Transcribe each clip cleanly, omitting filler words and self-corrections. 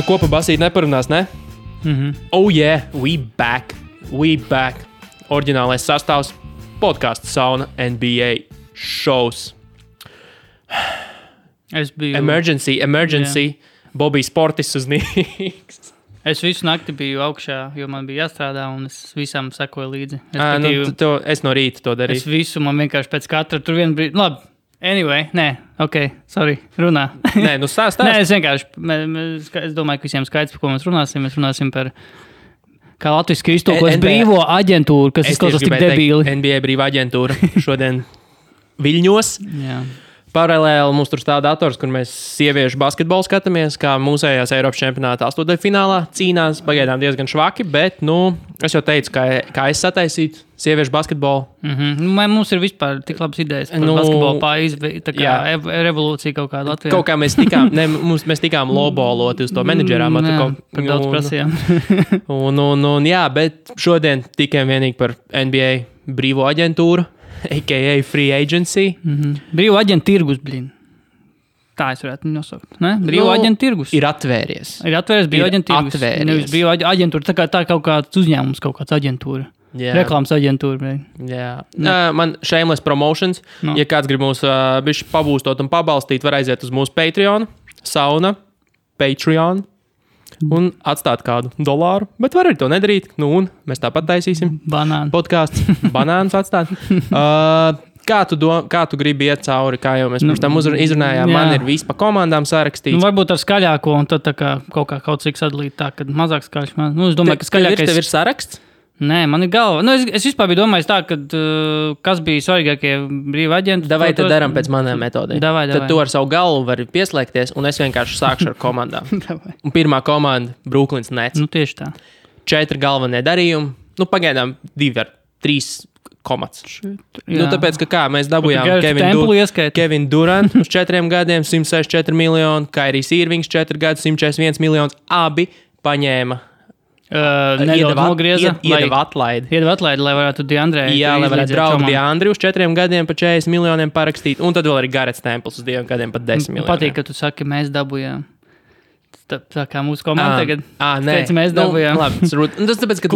Nu, ko pa basīt neparunās, ne? Oh yeah, we back. Oriģinālais sastāvs podcasts Sauna NBA shows. Es biju... Emergency. Yeah. Bobijs Portis uznīgs. Es visu nakti biju augšā, jo man bija jāstrādā, un es visam sekoju līdzi. Es no rīta to darīju. Es visu, man vienkārši pēc katra tur vienu brīdi... Labi, anyway, runā. Nē, nu stāst. Nē, es vienkārši... Es domāju, ka visiem skaidrs, par ko mēs runāsim. Mēs runāsim par... Kā latviski iztulkots brīvo aģentūru, kas izklausās tik debīli. NBA brīvā aģentūra šodien Viļņos. Jā. Paralēli mums tur stāv dators, kur mēs sieviešu basketbolu skatāmies, kā mūsējās Eiropas čempionāta 8. finālā cīnās, pagaidām diezgan švaki, bet, es jau teicu, kā es sataisītu sieviešu basketbolu. Mums ir vispār tik labas idejas par basketbolu tā kā revolūcija kaut kāda Latvijā. Kaut kā mēs tikām lowballoti uz to menedžerām. Par daudz prasījām. Jā, bet šodien tikai vienīgi par NBA brīvo aģentūru. A.k.a. Free Agency. Brīvo aģentu tirgus, blin. Tā es varētu nosaukt. Ne? Brīvo aģentu tirgus. Ir atvēries. Brīvo aģentu tirgus. Nevis brīvo aģentūra. Tā kaut kāds uzņēmums, kaut kāds aģentūra. Yeah. Reklāmas aģentūra. Jā. Man shameless promotions. No. Ja kāds grib mūs bišķi pabūstot un pabalstīt, var aiziet uz mūsu Patreon. Sauna. Patreon. Un atstāt kādu $1, bet var arī to nedarīt. Un mēs tāpat taisīsim. Banānu. Podcasts. Banānus atstāt. Kā tu gribi iet cauri, kā jau mēs pirms tam izrunājām, man ir viss pa komandām sarakstīts. Varbūt ar skaļāko un tad tā kā kaut cik sadalīt tā, kad mazāk skaļš. Es domāju, ka skaļākais... Tev ir saraksts? Nē, man ir galva. Es vispār biju domājis tā, ka kas bija svarīgākie brīvi aģenti. Davai tad daram pēc manām metodēm. Davai. Tad tu ar savu galvu vari pieslēgties, un es vienkārši sākšu ar komandām. Un pirmā komanda – Brooklyns Nets. Tieši tā. 4 galvenie darījumi. Pagaidām 2 ar 3 komats. Tāpēc, ka mēs dabujām Kevin Durant uz 4 gadiem, 164 miljoni, Kairijs Irvings 4 gadus, 141 miljonus. Abi paņēma. Iedeva atlaidi, lai varētu Deandre. Jā, lai varētu draugu Deandri uz 4 gadiem pa 40 miljoniem parakstīt. Un tad vēl arī Garets Templs uz 2 gadiem pa 10 miljoniem. Patīk, ka tu saki, mēs dabujām. Tā kā mūsu komanda tagad. Teici, mēs dabujām. Tas tāpēc, ka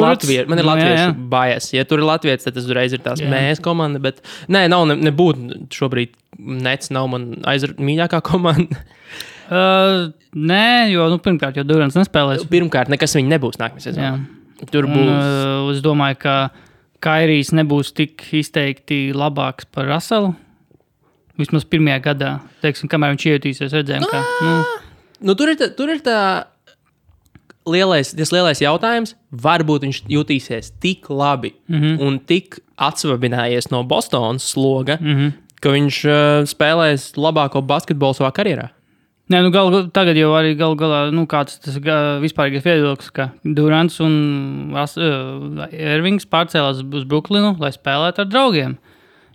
man ir latviešu bias. Ja tur ir latvietis, tad tas uzreiz ir tās mēs komanda. Bet nebūtu šobrīd Nets nav man mīļākā komanda. Nē, jo pirmkārt, jo Durants nespēlēs. Pirmkārt, nekas viņi nebūs nākamajā sezonā. Tur būs. Es domāju, ka Kairijs nebūs tik izteikti labāks par Russellu. Vismaz pirmajā gadā. Teiksim, kamēr viņš iejutīsies, redzējām, ka... Tur ir tā lielais jautājums. Varbūt viņš jutīsies tik labi un tik atsvabinājies no Bostonas sloga, ka viņš spēlēs labāko basketbolu savā karjerā. Nē, tagad jau arī galā, kāds tas vispārīgais viedoklis, ka Durants un Irvings pārcēlās uz Brooklynu, lai spēlētu ar draugiem.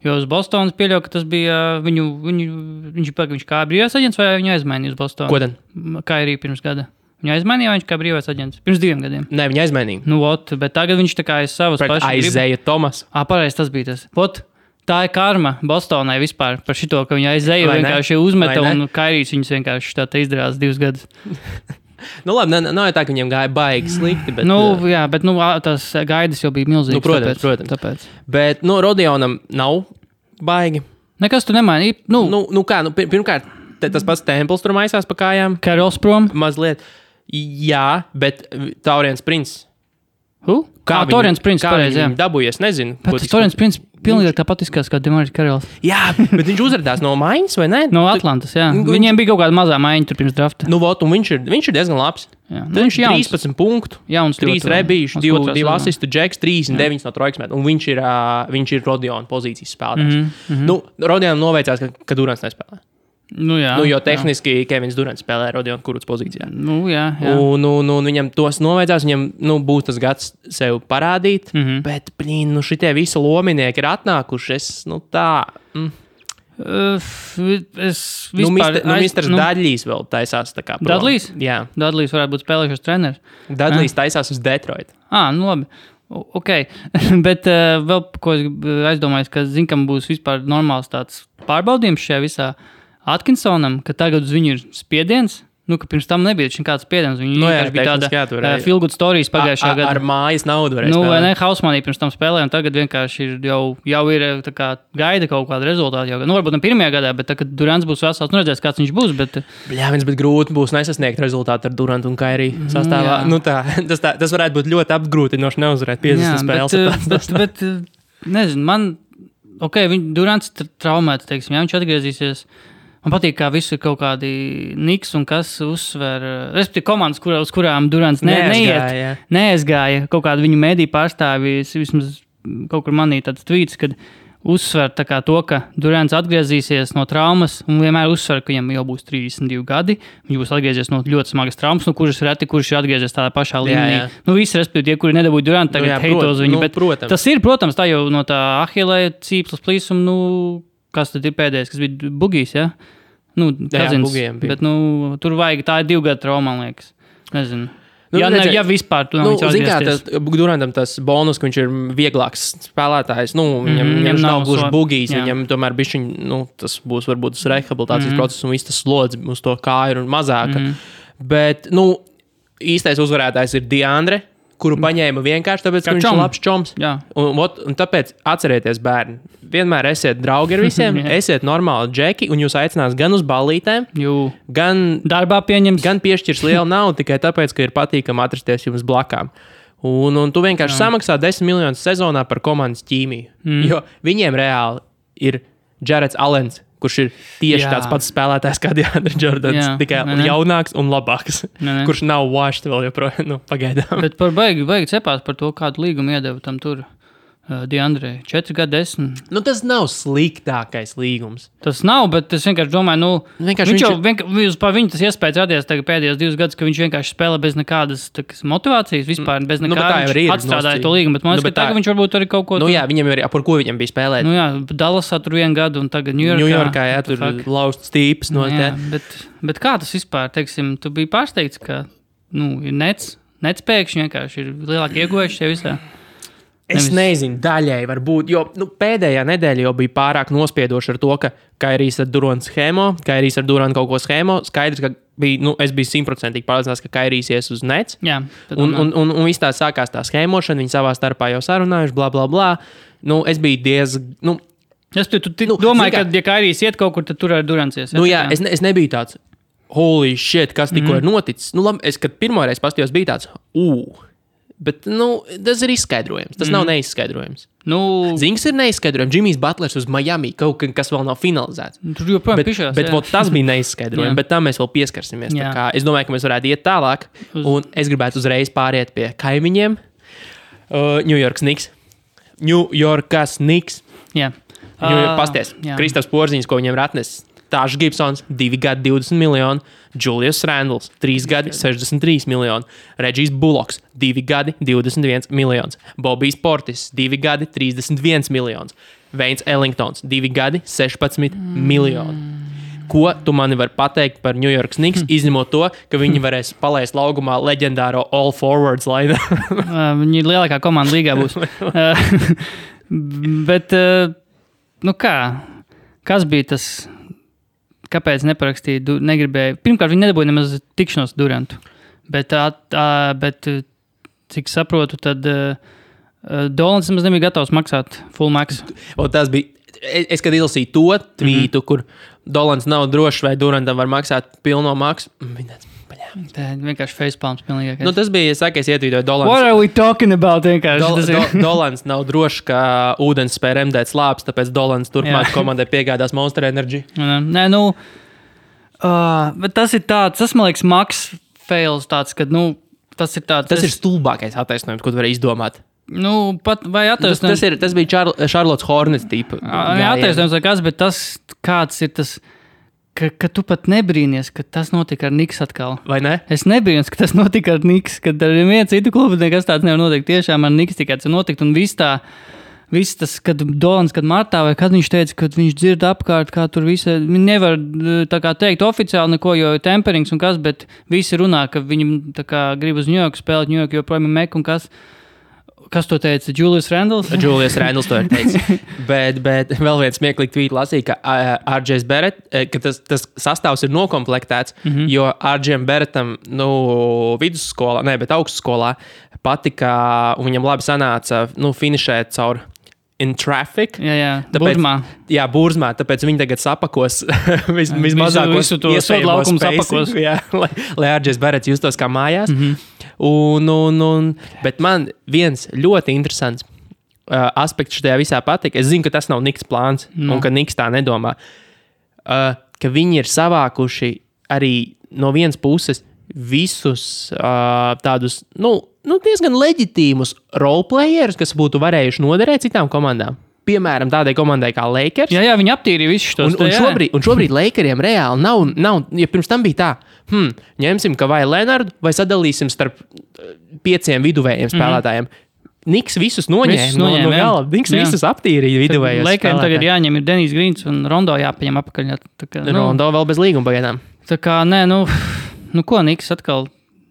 Jo uz Bostonas pieļauj, ka tas bija viņš kā brīvais aģents vai viņu aizmainīja uz Bostonu? Ko tad? Kā arī pirms gada. Viņu aizmainīja vai viņš kā brīvais aģents? Pirms 2 gadiem. Nē, viņu aizmainīja. Bet tagad viņš tā kā aiz savas pašas. Aizēja Tomas. Pareizi, tas bija tas. Tā ir karma Bostonai vispār par šito, ka viņa aizēja vienkārši uzmeta un Kairijs viņus vienkārši tā izdarās 2 gadus. Labi, nav tā, ka viņiem gāja baigi slikti, bet... bet tās gaidas jau bija milzīgas. Protams. Tāpēc. Bet, Rodionam nav baigi. Nekas tu nemaini. Pirmkārt, tas pats Templs tur maisās pa kājām. Carrolls prom. Mazliet. Jā, bet Tauriens Prince. Tauriens Prince, pareizi, jā. Dabūjies, nezinu. Bet Tauriens Prince pilnīgi tāpat izskatās kā Demaris Carrolls. Jā, bet viņš uzradās no Mainas, vai ne? No Atlantas, jā. Viņiem bija kaut kāda mazā maiņa tur pirms drafta. Un viņš ir diezgan labs. Tad viņš ir 13 punktu, 3 rebīšu, 2 asistu, Džeks, 39 no trojkas met. Un viņš ir Rodiona pozīcijas spēlētājs. Rodionam noveicās, ka Durants nespēlē. Jo tehniski Kevins Durants spēlē Rodiona Kuruts pozīcijā. Jā. Un viņam tos noveidzās, viņam būs tas gads sev parādīt, bet, šitie visi lominieki ir atnākuši, Misters Dudleys vēl taisās tā kā prom. Dudleys? Jā. Dudleys varētu būt spēlējušas treneris. Dudleys taisās uz Detroit. Labi. Ok, bet vēl, ko es aizdomājos, ka kam būs vispār normāls tāds pārbaudījums šajā visā Atkinsonam, ka tagad uz viņu ir spiediens ka pirms tam nebija kāds spiediens. Viņi vienkārši bija tāda feel good stories pagājušā gadā. Ar mājas naudu varēja spēlēt. Vai ne, Hausmanī pirms tam spēlēja, un tagad vienkārši jau ir tā kā gaida kaut kāda rezultāta. Varbūt ne pirmajā gadā, bet kad Durants būs vesels, redzēs, kāds viņš būs. Bet grūti būs nesasniegt rezultātu ar Durantu un Kairiju sastāvā. Tas varētu būt ļoti apgrūtinoši neuzvarēt 50 spēles. Bet nezinu, Durants traumēts, teiksim, viņš atgriezīsies. Man patīk, kā visu ir kaut kādi Niks un kas uzsver. Respektīvi komandas, uz kurām Durants neaizgāja. Kaut kādu viņu mediju pārstāvji, vismaz kaut kur manī tāds tweets, kad uzsver tā kā to, ka Durants atgriezīsies no traumas un vienmēr uzsver, ka viņam jau būs 32 gadi. Viņš būs atgriezies no ļoti smagas traumas, no kurš ir atgriezies tādā pašā līmenī. Visi, respektīvi, tie, kuri nedabūja Durantu, tagad heito uz viņu. Protams. Tas ir, protams, tā jau no tā Ahilē cīpslas plīsuma, kas tad ir pēdējais, kas bija Bugijs, ja? Bugijam bija. Bet, tur vajag, tā ir 2 gadu trauma, man liekas. Nezinu. Ja vispār tu nav atgriezties. Durantam tas bonus, ka viņš ir vieglāks spēlētājs, viņam nav gluži Bugijs, viņam tomēr bišķiņ, tas būs varbūt tas rehabilitācijas process un viss tas slodzi uz to kāju ir mazāka. Bet, īstais uzvarētājs ir Deandre, kuru paņēma vienkārši tāpēc, ka viņš ir labs čoms. Un tāpēc atcerieties, bērni, vienmēr esiet draugi ar visiem, esiet normāli džeki, un jūs aicinās gan uz ballītēm, gan darbā pieņems, gan piešķirs lielu naudu tikai tāpēc, ka ir patīkami atrasties jums blakām. Un tu vienkārši samaksā 10 miljonus sezonā par komandas ķīmiju. Jo viņiem reāli ir Jareds Allens, kurš ir tieši tāds pats spēlētājs kā Deandre Jordans, tikai jaunāks un labāks, kurš nav washed vēl joprojām, pagaidām. Bet baigi cepās par to, kādu līgumu iedeva tam tur Deandre. 4 gadi 10. Tas nav sliktākais līgums. Tas nav, bet es vienkārši domāju, viņš par viņu tas iespējas radies pēdējos 2 gadus, ka viņš vienkārši spēlē bez nekādas motivācijas, vispār bez nekādas atstrādāja to līgumu, bet man liekas, ka tagad viņš varbūt arī kaut ko... viņam ir, par ko viņam bija spēlēt. Dallasā tur 1 gadu un tagad Ņujorkā, tur lausts tīps. Bet kā tas vispār, teiksim, tu biji pārsteigts, ka, ir nets pēkšņi vienkārši ir lielāki ieguvējuši šajā visā. Es nezinu, daļai varbūt, jo pēdējā nedēļa jau bija pārāk nospiedoša ar to, ka Kairijs ar Durantu schēmo, Kairijs ar Durantu kaut ko schēmo. Skaidrs, ka es biju 100% pārliecināts, ka Kairijs ies uz nets. Jā, un viss tā sākās tā schēmošana, viņi savā starpā jau sarunājuši, bla, bla, bla. Es biju diezgan... Tu domāji, ka, ja Kairijs iet kaut kur, tad tur ar Durants ies? Es nebiju tāds, holy shit, kas tikko ir noticis. Es, kad pirmoreiz pastījos, biju tāds, Bet, tas ir izskaidrojams. Tas nav neizskaidrojams. Zings ir neizskaidrojams. Džimijs Butlers uz Miami, kaut kas vēl nav finalizēts. Tur joprojām pišās. Bet tas bija neizskaidrojams, bet tam mēs vēl pieskarsimies. Es domāju, ka mēs varētu iet tālāk. Un es gribētu uzreiz pāriet pie kaimiņiem. New Yorkas Knicks. Jā. Pasties. Kristaps Porziņš, ko viņam ir atnesis. Tāšs Gibsons, 2 gadi 20 miljoni. Julius Randles, 3 gadi 63 miljoni. Regijs Bullocks, 2 gadi 21 miljonus. Bobijs Portis, 2 gadi 31 miljonus. Veins Ellingtons, 2 gadi 16 miljoni. Ko tu mani vari pateikt par New York Knicks, izņemot to, ka viņi varēs palaist laugumā leģendāro All Forwards lainu? Viņi ir lielākā komanda līgā būs. Bet, kas bija tas... Kāpēc neparakstīja, negribēja? Pirmkārt, viņi nedabūja nemaz tikšanos Durantu. Bet cik saprotu, tad Dolans nemaz nebija gatavs maksāt full max. Tas bija, es kad izlasīju to tvītu, kur Dolans nav drošs, vai Durantam var maksāt pilno maksu. Tā vienkārši facepalms pilnīgākais. Tas bija, es ietvītoju Dolans. What are we talking about? Dolans nav drošs, ka ūdens spēj remdēt slāpes, tāpēc Dolans turpmāk komandai piegādās Monster Energy. Bet tas ir tāds, tas man liekas Max fails tāds, kad, tas ir tāds... Tas ir stulbākais attaisnojums, ko tu vari izdomāt. Vai attaisnojums... Tas bija Charlotte Hornets tipa. Attaisnojums vai kas, bet tas kāds ir tas... Ka tu pat nebrīnies, ka tas notika ar Knicks atkal. Vai ne? Es nebrīnos, ka tas notika ar Knicks, kad ar vienu citu klubu nekas tāds nevar notikt. Tiešām ar Knicks tikai tas notikt. Un viss tas, kad Dolans, kad martā, vai kad viņš teica, ka viņš dzird apkārt, kā tur visi, viņi nevar tā kā teikt oficiāli neko, jo ir temperings un kas, bet visi runā, ka viņi tā kā grib uz Ņujorku spēlēt, Ņujorku joprojām ir Mek un kas. Kas to teica? Julius Randles? Julius Randles to ir teicis. bet vēl viens smieklīgi tvīt lasīja, ka RJ Barrett, ka tas sastāvs ir nokomplektēts, jo RJ Barrettam, vidusskolā, bet augstskolā patika, un viņam labi sanāca, finišēt caur in traffic. Jā, Burzmā. Jā, Burzmā, tāpēc viņi tagad sapakos vismazākos iespējamos spacing, lai RJ Barretts justos kā mājās. Bet man viens ļoti interesants aspekts šajā visā patika. Es zinu, ka tas nav Niks plāns, un ka Niks tā nedomā. Ka viņi ir savākuši arī no vienas puses visus tādus, diezgan leģitīmus roleplayerus, kas būtu varējuši noderēt citām komandām. Piemēram, tādai komandai kā Lakers. Jā, viņi aptīrīja visus šos. Un šobrīd Lakeriem reāli nav, ja pirms tam bija tā, ņemsim Kawhi Leonardu vai sadalīsim starp 5 viduvējiem spēlētājiem. Niks visus noņēma no gala. Niks visus aptīrīja viduvējos spēlētājiem. Lakeriem tagad jāņem ir Denijs Grīns un Rondo jāpaņem apakaļ. Rondo vēl bez līguma pagaidām. Tā kā, ko Niks atkal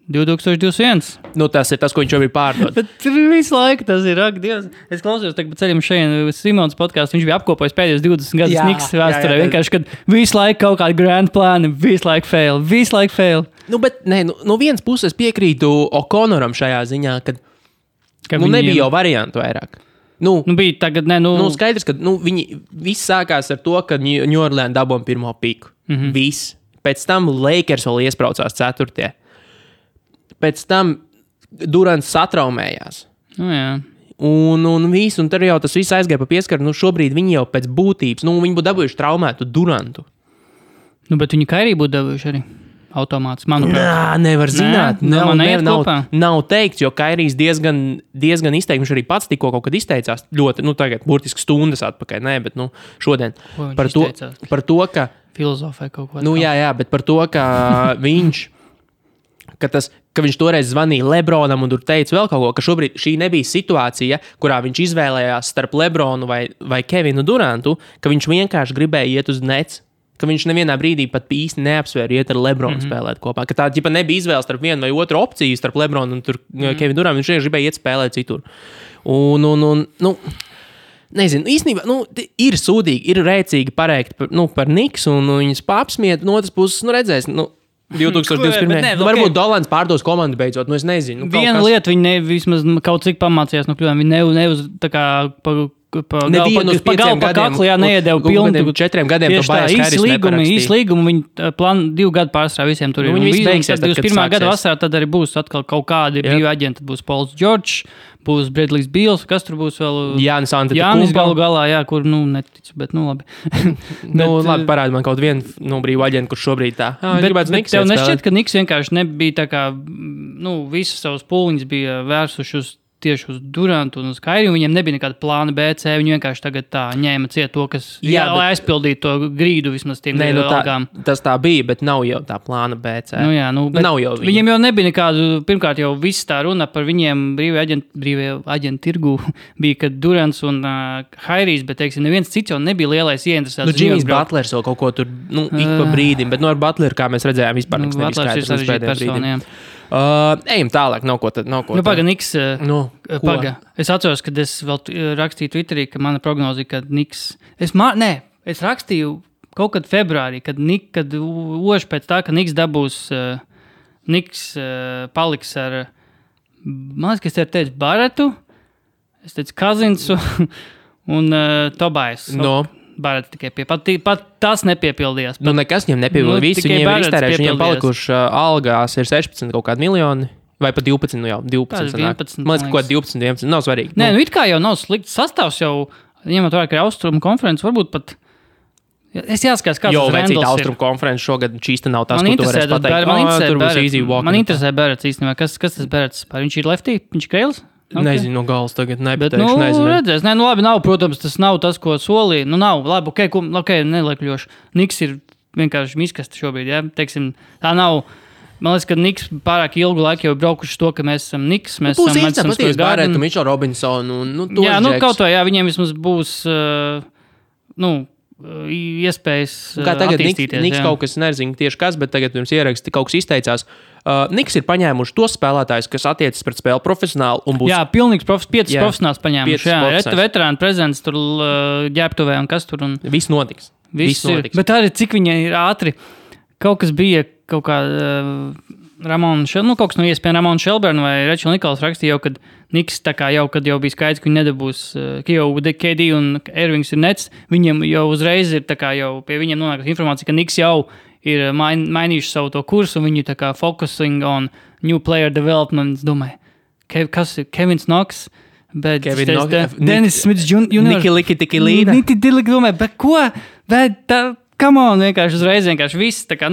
2021. Tas ir tas, ko viņš jau ir pārdod. Bet visu laiku tas ir, ak, Dievs. Es klausījos tagad pa ceļam šeit Simons podcastu, viņš bija apkopojis pēdējos 20 gadus Niks vēsturē. Vienkārši, kad visu laiku kaut kādi grand plāni, visu laiku fail. No vienas puses piekrītu O'Connoram šajā ziņā, kad nebija jau variantu vairāk. Bija tagad, skaidrs, ka viņi viss sākās ar to, ka New Orleans dabūja pirmo piku. Viss. Pēc tam Lakers vēl iespraucās 4. Pēc tam Durants satraumējās. Jā. Un viss, un tad jau tas viss aizgāja pa pieskaru. Šobrīd viņi jau pēc būtības, viņi būtu dabūjuši traumētu Durantu. Bet viņi Kairī būtu dabūjuši arī automāts, manuprāt. Nevar zināt. Nav teikts, jo Kairijs diezgan izteikti, viņš arī pats tikko kaut kad izteicās. Ļoti, tagad burtiski stundas atpakaļ. Bet šodien. Par to, ka... Filozofē kaut ko. Jā, bet par to, ka viņš... Ka viņš toreiz zvanīja Lebronam un tur teica vēl kaut ko, ka šobrīd šī nebija situācija, kurā viņš izvēlējās starp Lebronu vai Kevinu Durantu, ka viņš vienkārši gribēja iet uz Nets, ka viņš nevienā brīdī pat īsti neapsvēra iet ar Lebronu spēlēt kopā. Ka tā ģipa nebija izvēle starp vienu vai otru opciju starp Lebronu un Kevinu Durantu, viņš gribēja iet spēlēt citur. Nezinu, īstenībā, ir sūdīgi, ir rēcīgi parēkt par Niks un viņas papsmiet, no otras puses, redzēs, 2021. Varbūt Dolans pārdos komandu beidzot, es nezinu. Viena lieta, viņi vismaz kaut cik pamācījās no kļūdām, viņi neuz tā kā pa kaklu, neiedeva pilnu. 4 gadiem to Bājas Hairis neparakstīja. Īsi līgumi, viņi 2 gadu pārstrāv visiem tur. Viņi visi beigsies, tad, kad 21. gada vasarā tad arī būs atkal kaut kādi brīvi aģenti, būs Pauls George, būs Bradley's Beals, kas tur būs vēl? Jānis galu galā, kur, neticu, bet, labi. Labi, parādi man kaut vienu brīvu aģentu, kurš šobrīd tā. Bet tev nešķiet, ka Niks vienkārši nebija tā kā, visas savas pūliņas bija vērsuši tieši uz Durantu un uz Kairiju. Viņiem nebija nekāda plāna B, C. Viņi vienkārši tagad tā ņēma ciet to, kas lai aizpildītu to grīdu vismaz tiem algām. Tas tā bija, bet nav jau tā plāna B, C. Nav jau viņiem jau nebija nekādu, pirmkārt jau viss tā runa par viņiem brīvie aģentu tirgu bija, kad Durants un Hairijs, bet, teiksim, neviens cits jau nebija lielais ieinteresēts. Jimmys Butlers vēl kaut ko tur, ik pa brīdim, bet ar Butleru, kā mēs redzējām, vispār nekas nebija skaidrs. Ejam tālāk, nav ko. Paga, Niks, es atceros, kad es vēl rakstīju Twitterī, ka mana prognozija, ka Niks, es rakstīju kaut kad februārī, kad oši pēc tā, ka Niks dabūs, Niks paliks ar, man liekas, ka es teicu Barretu, es teicu Kazinsu un Tobais. Barrets tikai pat tas nepiepildījās. Nekas viņam nepiepildījās. Visi viņiem ir iztērējuši, viņiem palikuši algās ir 16 kaut kādi miljoni, vai pat 12, 12 sanāk. Man liekas, kaut 12, 11, nav svarīgi. Nē, it kā jau nav slikts sastāvs jau, ņemot vērā, ka ir Austrumu konferences, varbūt pat, es jāskatās, kāds tas Randles ir. Jo, Austrumu konferences šogad šīsta nav tas, ko tu varēs pateikt. Man interesē Barrets īstenībā, kas tas Barrets? Viņš ir lefty, viņš ir kreils? Okay. Nezinu, no galas tagad nepateikšu, nezinu. Redzēs, labi, nav, protams, tas nav tas, ko solīja. Nav, labi, nelekļoši. Niks ir vienkārši miskasta šobrīd, teiksim, tā nav, man liekas, ka Niks pārāk ilgu laiku jau braukuši to, ka mēs esam Niks, mēs esam Madison Square Garden. Būs Mitchell Robinson un, kaut vai, viņiem vismaz būs, iespējas kā tagad attīstīties. Niks kaut kas nezinu tieši kas, bet tagad pirms ieraksti kaut kas izteicās. Niks ir paņēmuši tos spēlētājus, kas attiecas pret spēli profesionāli un būs... Jā, pilnīgs piecas profesionāls paņēmuši. Jā, veterāni prezents tur ģērbtuvē un kas tur. Un... Viss notiks. Viss notiks. Bet arī cik viņa ir ātri. Kaut kas bija, kaut kā Ramona kaut kas no ESPN Ramona Shelburne vai Rachel Nichols rakstīja jau, kad Niks tā kā jau, kad jau bija skaidrs, ka viņi nedabūs, ka jau KD un Irvings ir nets, viņiem jau uzreiz ir tā kā jau pie viņiem nonākas informācija, ka Niks jau ir mainījuši savu to kursu, un viņi tā kā focusing on new player development. Es domāju, kas ir Kevins Knox, bet Dennis Smits Jr. Niki Liki Tiki Līda. Niki Diliki domāju, bet ko? Bet tā, come on, vienkārši uzreiz viss, tā kā,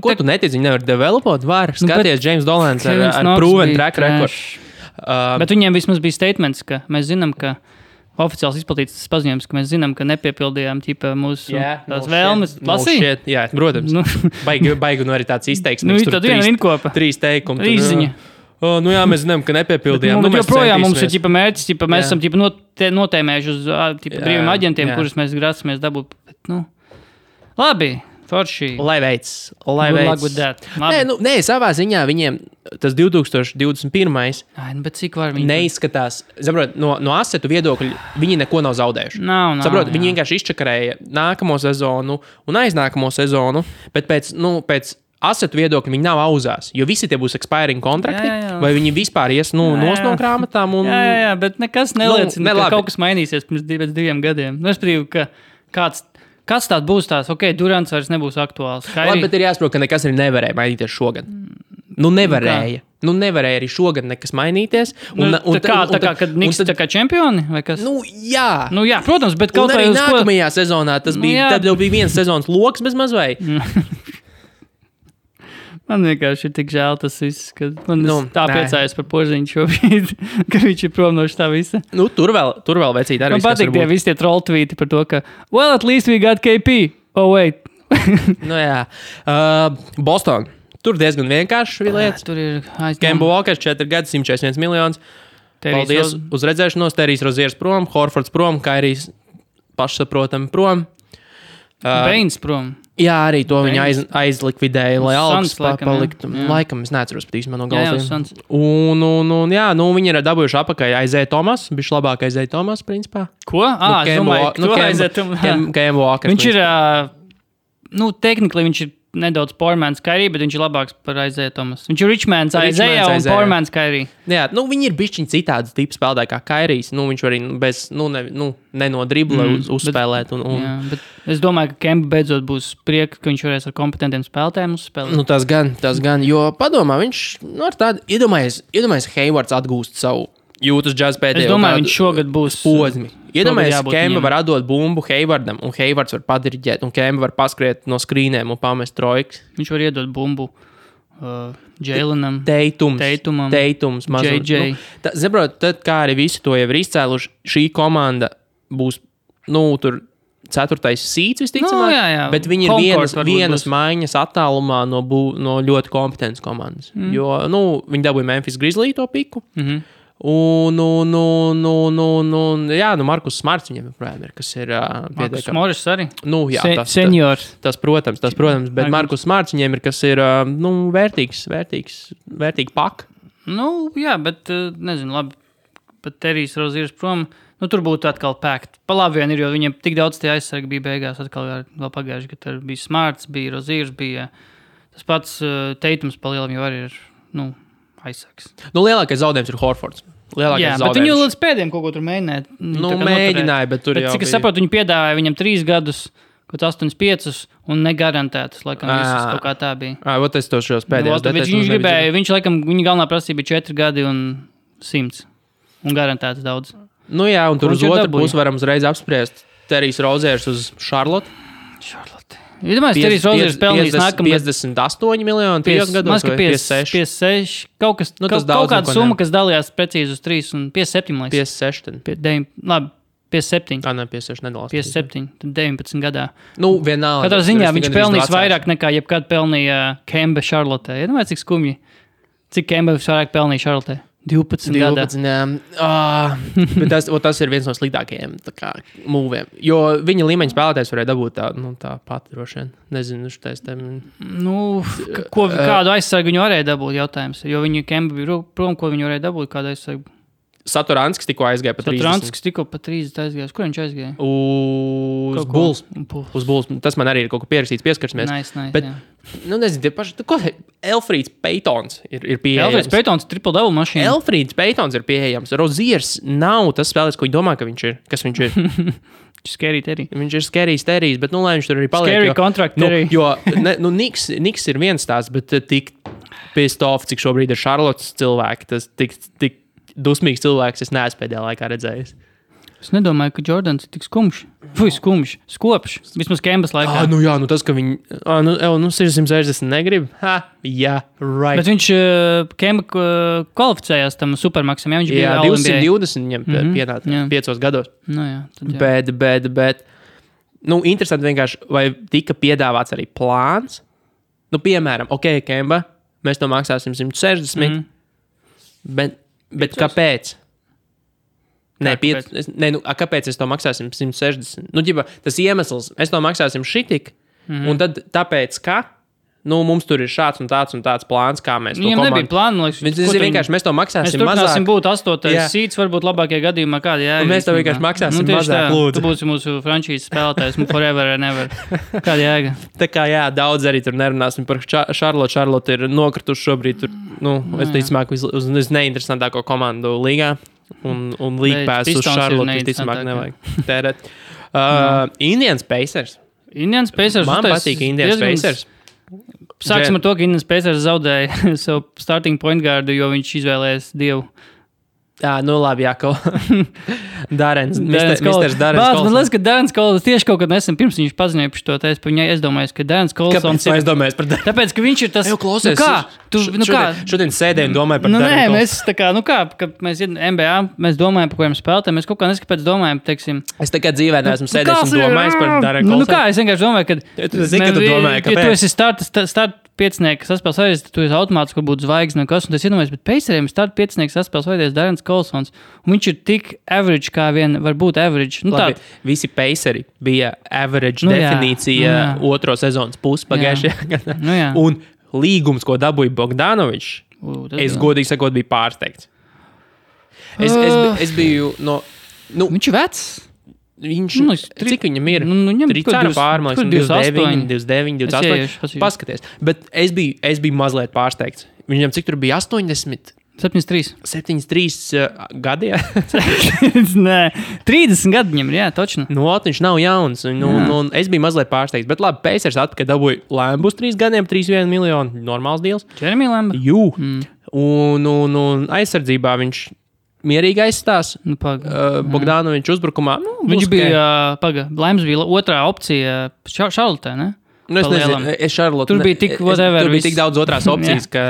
Ko tu netici, viņi nevar developot? Var skaties James Dolans ar proven track record. Bet viņiem vismaz bija statements, ka mēs zinām, ka oficiāls izplatīts paziņojums, ka mēs zinām, ka nepiepildījām mūsu vēlmes. Lasīja? Jā, protams. Baigi arī tāds izteiksmes. Tad viena rinkopa. 3 teikumi. Rīziņa. Jā, mēs zinām, ka nepiepildījām. Joprojām mums ir mērķis, mēs esam notēmējuši uz brīviem aģentiem, kurus mēs grāsamies dabūt. Labi. Forši. Lai veids. Nē, savā ziņā viņiem tas 2021. Bet cik var viņi? Neizskatās. Saprot, no asetu viedokļa viņi neko nav zaudējuši. Saprot, viņi vienkārši izčakarēja nākamo sezonu un aiznākamo sezonu, bet pēc asetu viedokļa viņi nav auzās, jo visi tie būs expiring kontrakti, vai viņi vispār ies nos no grāmatām. Jā, bet nekas neliecina, ka kaut kas mainīsies pēc 2 gadiem. Es prieku, ka kāds tāds būs tās, Durants vairs nebūs aktuāls. Labi, bet ir jāsaprot, ka nekas arī nevarēja mainīties šogad. Nevarēja. Nevarēja arī šogad nekas mainīties. Kad Niks tā kā čempioni, vai kas? Jā. Jā, protams, bet kaut arī nākamajā sezonā tas bija, tad jau bija viens sezonas loks bez mazvai. Man vienkārši ir tik žēl tas viss, ka man tā priecājas par Porziņu šobrīd, ka viņš ir prom no šitā visa. Tur vēl vecīt arī. Man patīk tie visi tie troll tweeti par to, ka well, at least we got KP. Oh, wait. Jā. Boston. Tur diezgan vienkārši lietas. Tur ir Kemba Walkers 4 gadi, 141 miljonus. Paldies uz redzēšanos. Terijs Roziers prom, Horfords prom, Kairijs pašsaprotami prom. Bains prom. Jā, arī to viņa aizlikvidēja, lai algas paliktu. Laikam es neatceros pat īstenībā no galviem. Viņi ir dabūjuši apakaļ Isaiah Thomas, bišķi labāk Isaiah Thomas, principā. Ko? Es domāju, Kemba Walkers. Viņš ir, technically viņš ir nedaudz Powerman's Kyrie, bet viņš ir labāks par Isaiah Thomas. Viņš ir Richmans Isaiah un Powerman's Kyrie. Jā, viņi ir bišķiņi citādi tipi spēlētāji kā Kairijs. Viņš var arī ne no dribla uzspēlēt. Jā, bet es domāju, ka Kemba beidzot būs prieks, ka viņš varēs ar kompetentiem spēlētājiem uzspēlēt. Tas gan, jo padomā, viņš ar tādu, iedomājies Haywards atgūst savu jūtas džaz pēdējo. Es domāju, viņš šogad būs posmi. Iedomājies, Kemba var atdot bumbu Haywardam, un Haywards var padiriģēt, un Kemba var paskriet no skrīnēm un pamest trojkas. Viņš var iedot bumbu Jalenam, Teitums, JJ. Saprot, tad kā arī visi to jau ir izcēluši, šī komanda būs, tur 4. seeds visticamāk, bet viņi ir vienas maiņas attālumā no ļoti kompetentas komandas. Jo, viņi dabūja Memphis Grizzly to piku. Markus Smarts viņam joprojām ir, kas ir Markus Morris arī? Seniors. Tas, protams, bet Markus Smarts viņam ir, kas ir, vērtīgi pak. Jā, bet, nezinu, labi, pat Terijs Roziers prom, tur būtu atkal pēkt. Pa labi vien ir, jo viņiem tik daudz tie aizsargi bija beigās, atkal vēl pagājuši, ka tur bija Smarts, bija Roziers, bija tas pats Teitums pa lielam jau arī ir, aizsargs. Lielākais zaudējums ir Horfords. Bet viņi līdz pēdējiem kaut ko tur mēģināja. Mēģināja, bet tur jau cik es saprotu, viņi piedāvāja viņam 3 gadus, kaut 8-5 un negarantētas, laikam visas kaut kā tā bija. Es to šos pēdējos. Viņš laikam, viņa galvenā prasība bija 4 gadi un 100. Un garantētas daudz. Un tur uz otru pusi varam uzreiz apspriest Terijs Roziers uz Charlotte. Iedomājies, Terijs Roziers pelnījis nākamgad 58 miljoni 3 gados vai 56. Kaut kāda summa, kas dalījās precīzi uz 3 un 57, man liekas. 56. Labi, 57. 56 nedalās. 57, tad 19 gadā. Vienalga. Katrā ziņā viņš pelnījis vairāk nekā jebkad pelnīja Kemba Charlotte. Iedomājies, cik skumji. Cik Kemba vairāk pelnīja Charlotte? 12 gada. Bet tas ir viens no sliktākajiem mūviem. Jo viņa līmeņa spēlētājs varēja dabūt tā pati droši vien. Nezinu, šitais tam. Kādu aizsargu viņi varēja dabūt, jautājums. Jo viņa Kemba bija prom, ko viņi varēja dabūt, kādu aizsargu. Satoranskis tikko aizgāja pa 30. Satoranskis tikko pa 30 aizgājās. Kur viņš aizgāja? Uz Bulls. Uz Bulls. Tas man arī ir kaut ko pierakstīts, pieskarsimies. Nice, bet, nezinu, tie paši, Elfrīds Paytons ir pieejams. Elfrīds Paytons triple-double mašīna. Elfrīds Paytons ir pieejams. Roziers nav tas spēlētājs, ko viņi domā, ka viņš ir. Kas viņš ir? Scary Terry. Viņš ir Scary Terry, bet lai viņš tur arī paliek. Scary contract Terry. Jo Niks ir viens tās, bet tik pissed off, cik šobrīd ir Charlottes cilvēki, tas tik dusmīgs cilvēks, es neesmu pēdējā laikā redzējis. Es nedomāju, ka Jordans ir tik skumjš. Skopš. Vismaz Kembas laikā. Tas, ka viņi 660 negrib. Right. Bet viņš Kemba kvalificējās tam supermaksam, viņš bija 220 viņam pienāca 5 gados. Bet interesanti vienkārši, vai tika piedāvāts arī plāns. Piemēram, Kemba, mēs to maksāsim 160, bet kāpēc? Kāpēc es to maksāsim 160? Tas iemesls, es to maksāsim šitik, un tad tāpēc, ka mums tur ir šāds un tāds plāns, kā mēs to komandu. Viņam nebija plāna, vienkārši mēs to maksāsim mazāk. Mēs turpināsim būt 8. sīts, varbūt labākajā gadījumā kādi jēga. Mēs to vienkārši maksāsim mazāk, lūdzu. Tu būsi mūsu frančīzes spēlētājs, forever and ever. Kāda jēga? Tā kā daudz arī tur nerunāsim par Charlotte. Charlotte ir nokrituši šobrīd tur, es ticamāk uz neinteresantāko komandu līgā. Un līgpēs uz Charlotte ticamāk nevajag tērēt. Indians Pacers. Man patīk Indians Pacers. Sāksim ar to, ka Indians Pacers zaudēja savu starting point guardu, jo viņš izvēlējās Dievu. Labi, Darens Kols. Man liekas, ka Darens Kols tieši kaut kad nesen pirms viņš paziņoja par šo tēstu, par viņai aizdomājies, ka Darens Kols... Kāpēc aizdomājies par Darens? Tāpēc, ka viņš ir tas... Klausies, šodien sēdēju un domāju par Darens Kols. Mēs tā kā, kad mēs NBA, mēs domājam, par ko jums spēlētājiem, mēs kaut kā neskapēc domājam, teiksim... Es tā kā dzīvē neesmu sēdējis un domājis par Darens Kolsu. Es vienkārši domāju, ka... Tu zini, ka tu domāji, kāpēc? Ja tu esi start piecinieks saspēles vajadies, tad tu esi automātiski, kur būtu zvaigzne un kas, un es iedomājos, bet Paceriem start piecinieks saspēles vajadies Darens Kolsons, un viņš ir tik average, kā vien var būt average. Labi, visi Paceri bija average definīcija otro sezonas pusi pagājušajā gadā. Un līgums, ko dabūja Bogdanovičs, es godīgi sakot, biju pārsteigts. Es biju no... Viņš ir vecs. Cik viņam ir? Tricāra pārmaiņas, 29, 28. Paskaties. Bet es biju mazliet pārsteigts. Viņam cik tur bija 80? 73 gadi, jā? Nē, 30 gadi viņam ir, jā, točni. Viņš nav jauns. Un es biju mazliet pārsteigts. Bet labi, Pacers atpakaļ dabūja Lambus 3 gadiem, 3,1 miljonu. Normāls deals. Jeremy Lamb? Jū. Un aizsardzībā viņš... mierīgi aizstās. Bogdanovičs uzbrukumā. Viņš bija, Laims bija otrā opcija Charlotte, ne? Es nezinu, Charlotte. Tur bija tik whatever. Tur bija tik daudz otrās opcijas, ka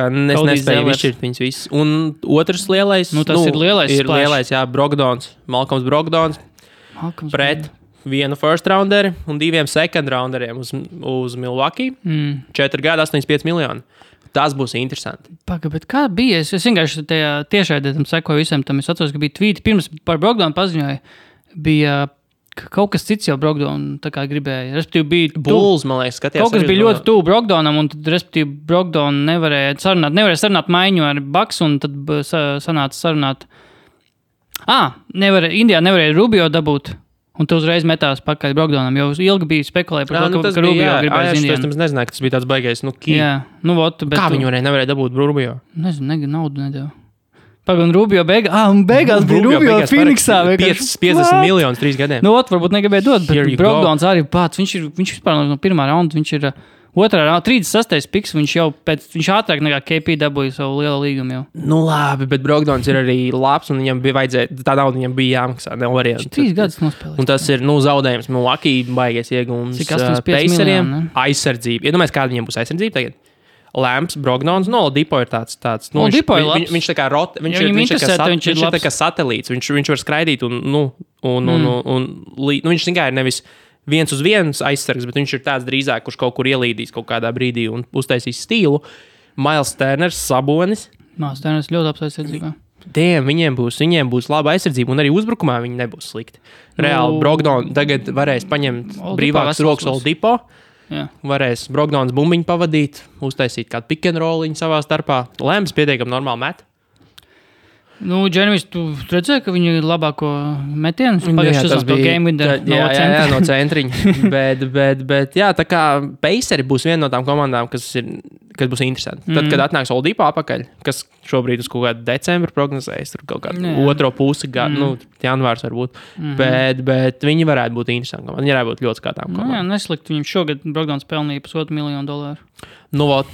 es nespēju izšķirt viņus visus. Un otrs lielais, ir lielais, ir lielais, Brogdons, Malcolms Brogdons, pret vienu first rounderi un 2 second rounderiem uz Milwaukee. 4 gadi, 85 miljoni. Tas būs interesanti. Bet kā bija? Es vienkārši tajā tiešraidē tam sekoju visam tam. Es atceros, ka bija tvīti. Pirms par Brogdonu paziņoja, bija kaut kas cits jau Brogdonu tā kā gribēja. Respektīvi bija... Bulls, man liekas, skatījās. Kaut kas bija ļoti tuvu Brogdonam, un tad, respektīvi, Brogdonu nevarēja sarunāt maiņu ar Bucks, un tad sanāca sarunāt... Indijā nevarēja Rubio dabūt. Un tu uzreiz metās pakaļ Brogdonam, jo ilgi bija spekulēja par to, ka Rubio gribēja Indijā. Es nezināju, ka tas bija tāds baigais, Kā viņi nevarēja dabūt Rubio? Nezinu, naudu nedēļu. Un Rubio beigās bija Rubio Phoenixā. 50 miljonus 3 gadiem. Varbūt negribēja dot, bet Brogdons arī pats. Viņš vispār no pirmā raunda, viņš ir otrā raunda, 36. piks, viņš ātrāk nekā KP dabūja savu lielo līgumu jau. Labi, bet Brogdons ir arī labs, un viņam bija vajadzēja, tā nauda viņam bija jāmaksā, nav variantu. 3 gadus nospēlēs. Un tas ir, zaudējums Milwaukee baigies iegums Paceriem. Aizsardzība. Iedomājies, kāda viņam būs aizsardzība tagad? Lamps, Brogdons, Oladipo ir tāds. Oladipo ir labs. Viņš tā kā viņš ir tā kā satelīts. Viņš var skraidīt viņš tikai ir nevis 1 uz 1 aizsargs, bet viņš ir tāds drīzāk, kurš kaut kur ielīdīs kaut kādā brīdī un uztaisīs stīlu. Miles Turners, Sabonis. Māsdēnes ļoti labs aizsardzībā. Viņiem būs laba aizsardzība, un arī uzbrukumā viņi nebūs slikti. Reāli Brogdons tagad varēs paņemt brīvākas rokas Oldipo. Jā. Varēs Brogdons bumbiņu pavadīt, uztaisīt kādu pick and rolliņu savā starpā. Lēms pietiekami normāli met. Džermijs, tu redzēji, ka viņi ir labāko metienu? Pagājušajā tas bija game winner no centriņa. bet jā, tā kā Paceri būs viena no tām komandām, kas būs interesanti. Tad, kad atnāks Oldipo apakaļ, kas šobrīd uz kaut kādu decembru prognozējas, tur kaut kādu otro pusi, janvārs varbūt. Bet viņi varētu būt interesanti. Viņi varētu būt ļoti skatām komandām. Jā, neslikti. Viņam šogad Brogdons pelnīja $1,5 miljonu. Vot.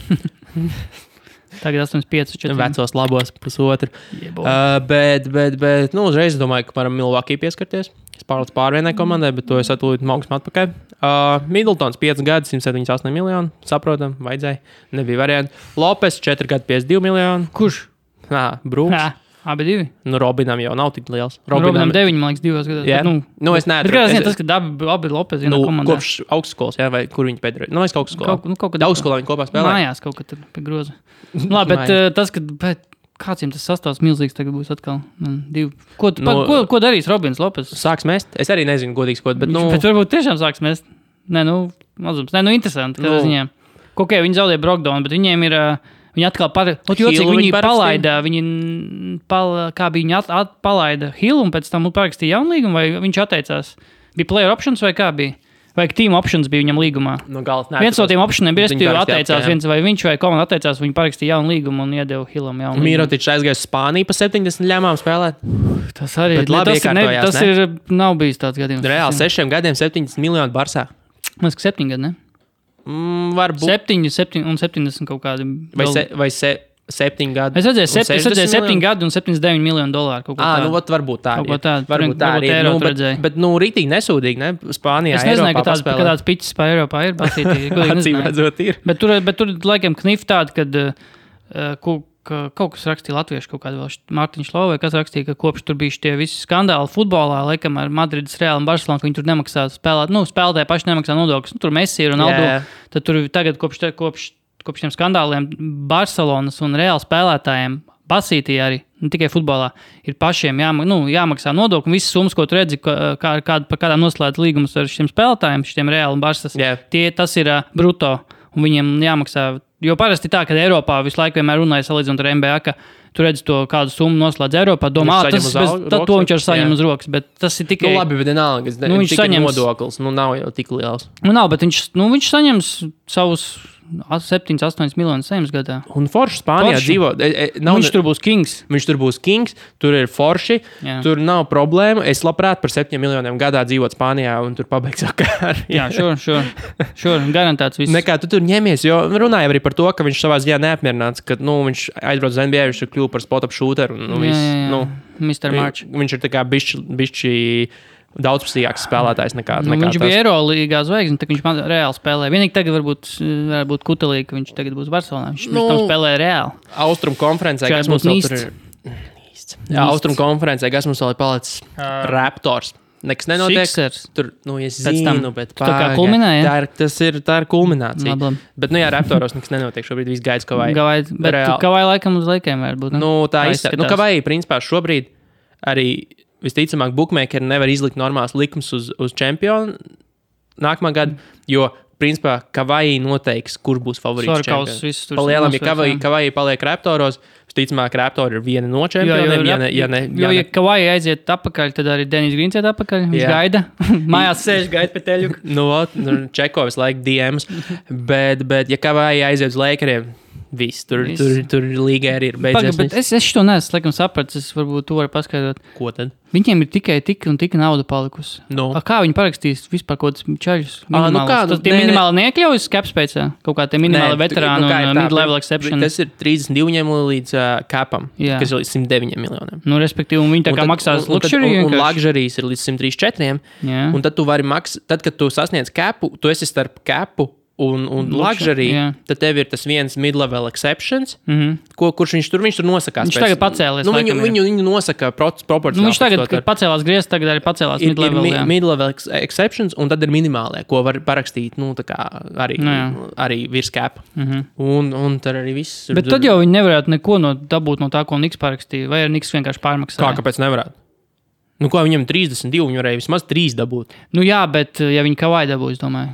Tagad 8,5. Vecos labos pusotru. Bet, uzreiz domāju, ka varam Milwaukee pieskarties. Es pārlēc pārvienai komandai, bet to es atūlīt augstu atpakaļ. Middletons 5 gadi, 178 miljoni. Saprotam, vajadzēja. Nebija varianti. Lopes 4 gadi, 52 miljoni. Kurš? Brūks. Abi divi. Robinam jau nav tik liels. Robinam 9, man liekas, 2 gados. Yeah. Es neatceros. Bet kādā ziņā tas, ka abi Lopez vienā komandā. Kopš augstskolas, vai kur viņi pēdējā? Es augstskolā. Kaut kad augstskolā viņi kopā spēlē. Mājās kaut kad pie groza. Labi, bet tas, ka kāds viņam tas sastāvs milzīgs tagad būs atkal. Ko darīs Robins Lopez? Sāks mest? Es arī nezinu, godīgs kaut, bet Bet varbūt tiešām sāks mest. Mazums. Interesanti, kādā ziņā. Viņi zaudēja Brogdonu, bet viņiem ir... Viņi atkal viņi palaida, kā bija viņi palaida Hillu un pēc tam parakstīja jaunu līgumu, vai viņš atteicās? Bija player options vai kā bija? Vai team options bija viņam līgumā? Viens no tiem optioniem bija, atteicās, vai viņš vai komanda atteicās, viņi parakstīja jaunu līgumu un iedeva Hillam jaunu līgumu. Mirotičs aizgāja uz Spāniju pa 70 ļamām spēlēt. Tas arī nav bijis tāds gadījums. Reāli 6 gadiem 70 miljoni Barsā. Man liekas, 7 gadi, ne? Varbūt 7 un 70 kaut kādi. Vai 7 gadi. Es redzēju 7 gadi un $79 miljonu. Varbūt tā. Varbūt tā arī. Bet rītīgi nesūdīgi, ne? Spānijā, es nezināju, ka tāds piķis pa Eiropā ir. Acīm redzot ir. Bet tur laikam knif tāda, kad kaut kas rakstīja latviešu, kaut kāda vēl Mārtiņš Lova, kas rakstīja, ka kopš tur bija tie visi skandāli futbolā, laikam ar Madrides Reālu un Barcelonu, ka viņi tur nemaksā spēlēt, spēlētāji paši nemaksā nodokļus. Tur Messi ir Ronaldo. Tad tur tagad kopš tiem skandāliem Barcelonas un Reāla spēlētājiem basītī arī, ne tikai futbolā, ir pašiem jāmaksā nodokļi. Visas summas, ko tu redzi, par kādām noslēdz līgumus ar šiem spēlētājiem, šiem Reāla un Barcelonas, tas ir bruto, un viņiem jāmaksā. Jo parasti tā, kad Eiropā visu laiku vienmēr runāja salīdzinot ar NBA, ka tu redzi to kādu summu noslēdz Eiropā, domā, to viņš ar saņem uz rokas, bet tas ir tikai... labi, bet vienalga, viņš saņems nodoklis, nav jau tik liels. Nav, bet viņš saņems savus 7-8 miljonus saņems gadā. Un forši Spānijā dzīvo... Viņš tur būs kings. Tur ir forši, tur nav problēma. Es labprāt par 7 miljoniem gadā dzīvot Spānijā un tur pabeigt savu karjeru. Jā, sure, garantēts viss. Nekā tu tur ņemies, jo runāja arī par to, ka viņš savā ziņā neapmierināts, ka viņš aizbrauc uz NBA, viņš ir kļuvu par spot-up shooteru. Mr. March. Viņš ir tā kā bišķi daudzpusīgāks spēlētājs nekā viņš bija Eirolīgā zvaigzne, tad viņš reāli spēlē. Vienīgi tagad varbūt kutelīgi, ka viņš tagad būs Barcelonā. Viņš tam spēlē reāli. Austrum konferencē, kas mums vēl tur ir... Austrum konferencē, kas mums vēl ir palicis Raptors. Nekas nenotiek. Sixers. Tur, es zinu, bet tā kā kulminēja. Tā ir kulminācija. Labi. Bet, Raptoros nekas nenotiek. Šobrīd viss gaids Kavai. Bet Kavai laikam uz laikiem var būt. Tā izskatās. Kavai, principā, šobrīd arī visticamāk bookmakeri nevar izlikt normāls likums uz čempionu nākamā gada, jo, principā, Kavai noteiks, kur būs favorīts čempions. Palielam, ja Kavai paliek Raptoros, visticamāk, Raptori ir viena no čempioniem, ja Kavai aiziet atpakaļ, tad arī Denis Grīns iet atpakaļ, viņš gaida, mājās sēž, gaida pie teļuka. Čeko visu laiku DMs, bet ja Kavai aiziet uz Lakeriem, viss, tur līga arī ir beidzies. Bet es šo neesmu, laikam, sapratis, es varbūt tu vari paskaidrot. Ko tad? Viņiem ir tikai tik un tik nauda palikusi. Kā viņi parakstīs vispār kaut kāds čaļus? Tie minimāli neiekļaujas capspace, kaut kā tie minimāli veterāni un mid-level exception. Tas ir 32 līdz capam, kas ir līdz 109 miljoniem. Respektīvi, un viņi tā kā maksās luxury. Un luxuries ir līdz 134. Un tad tu vari maksāt, tad, kad tu sasniedz capu, tu esi starp capu un luxury, tad tev ir tas viens mid-level exceptions, kurš viņš tur nosakās. Viņš tagad pacēlies. Viņu nosaka proporcionāli. Viņš tagad pacēlās griezts, tagad arī pacēlās mid-level. Ir mid-level exceptions, un tad ir minimālie, ko var parakstīt, tā kā arī virs cap. Un tad arī viss. Bet tad jau viņi nevarētu neko dabūt no tā, ko Niks parakstīja, vai ar Niks vienkārši pārmaksāja? Kāpēc nevarētu? Ko viņam 32, viņi varēja vismaz 3 dabūt. Jā, bet ja viņi Kawhi dabū, es domāju.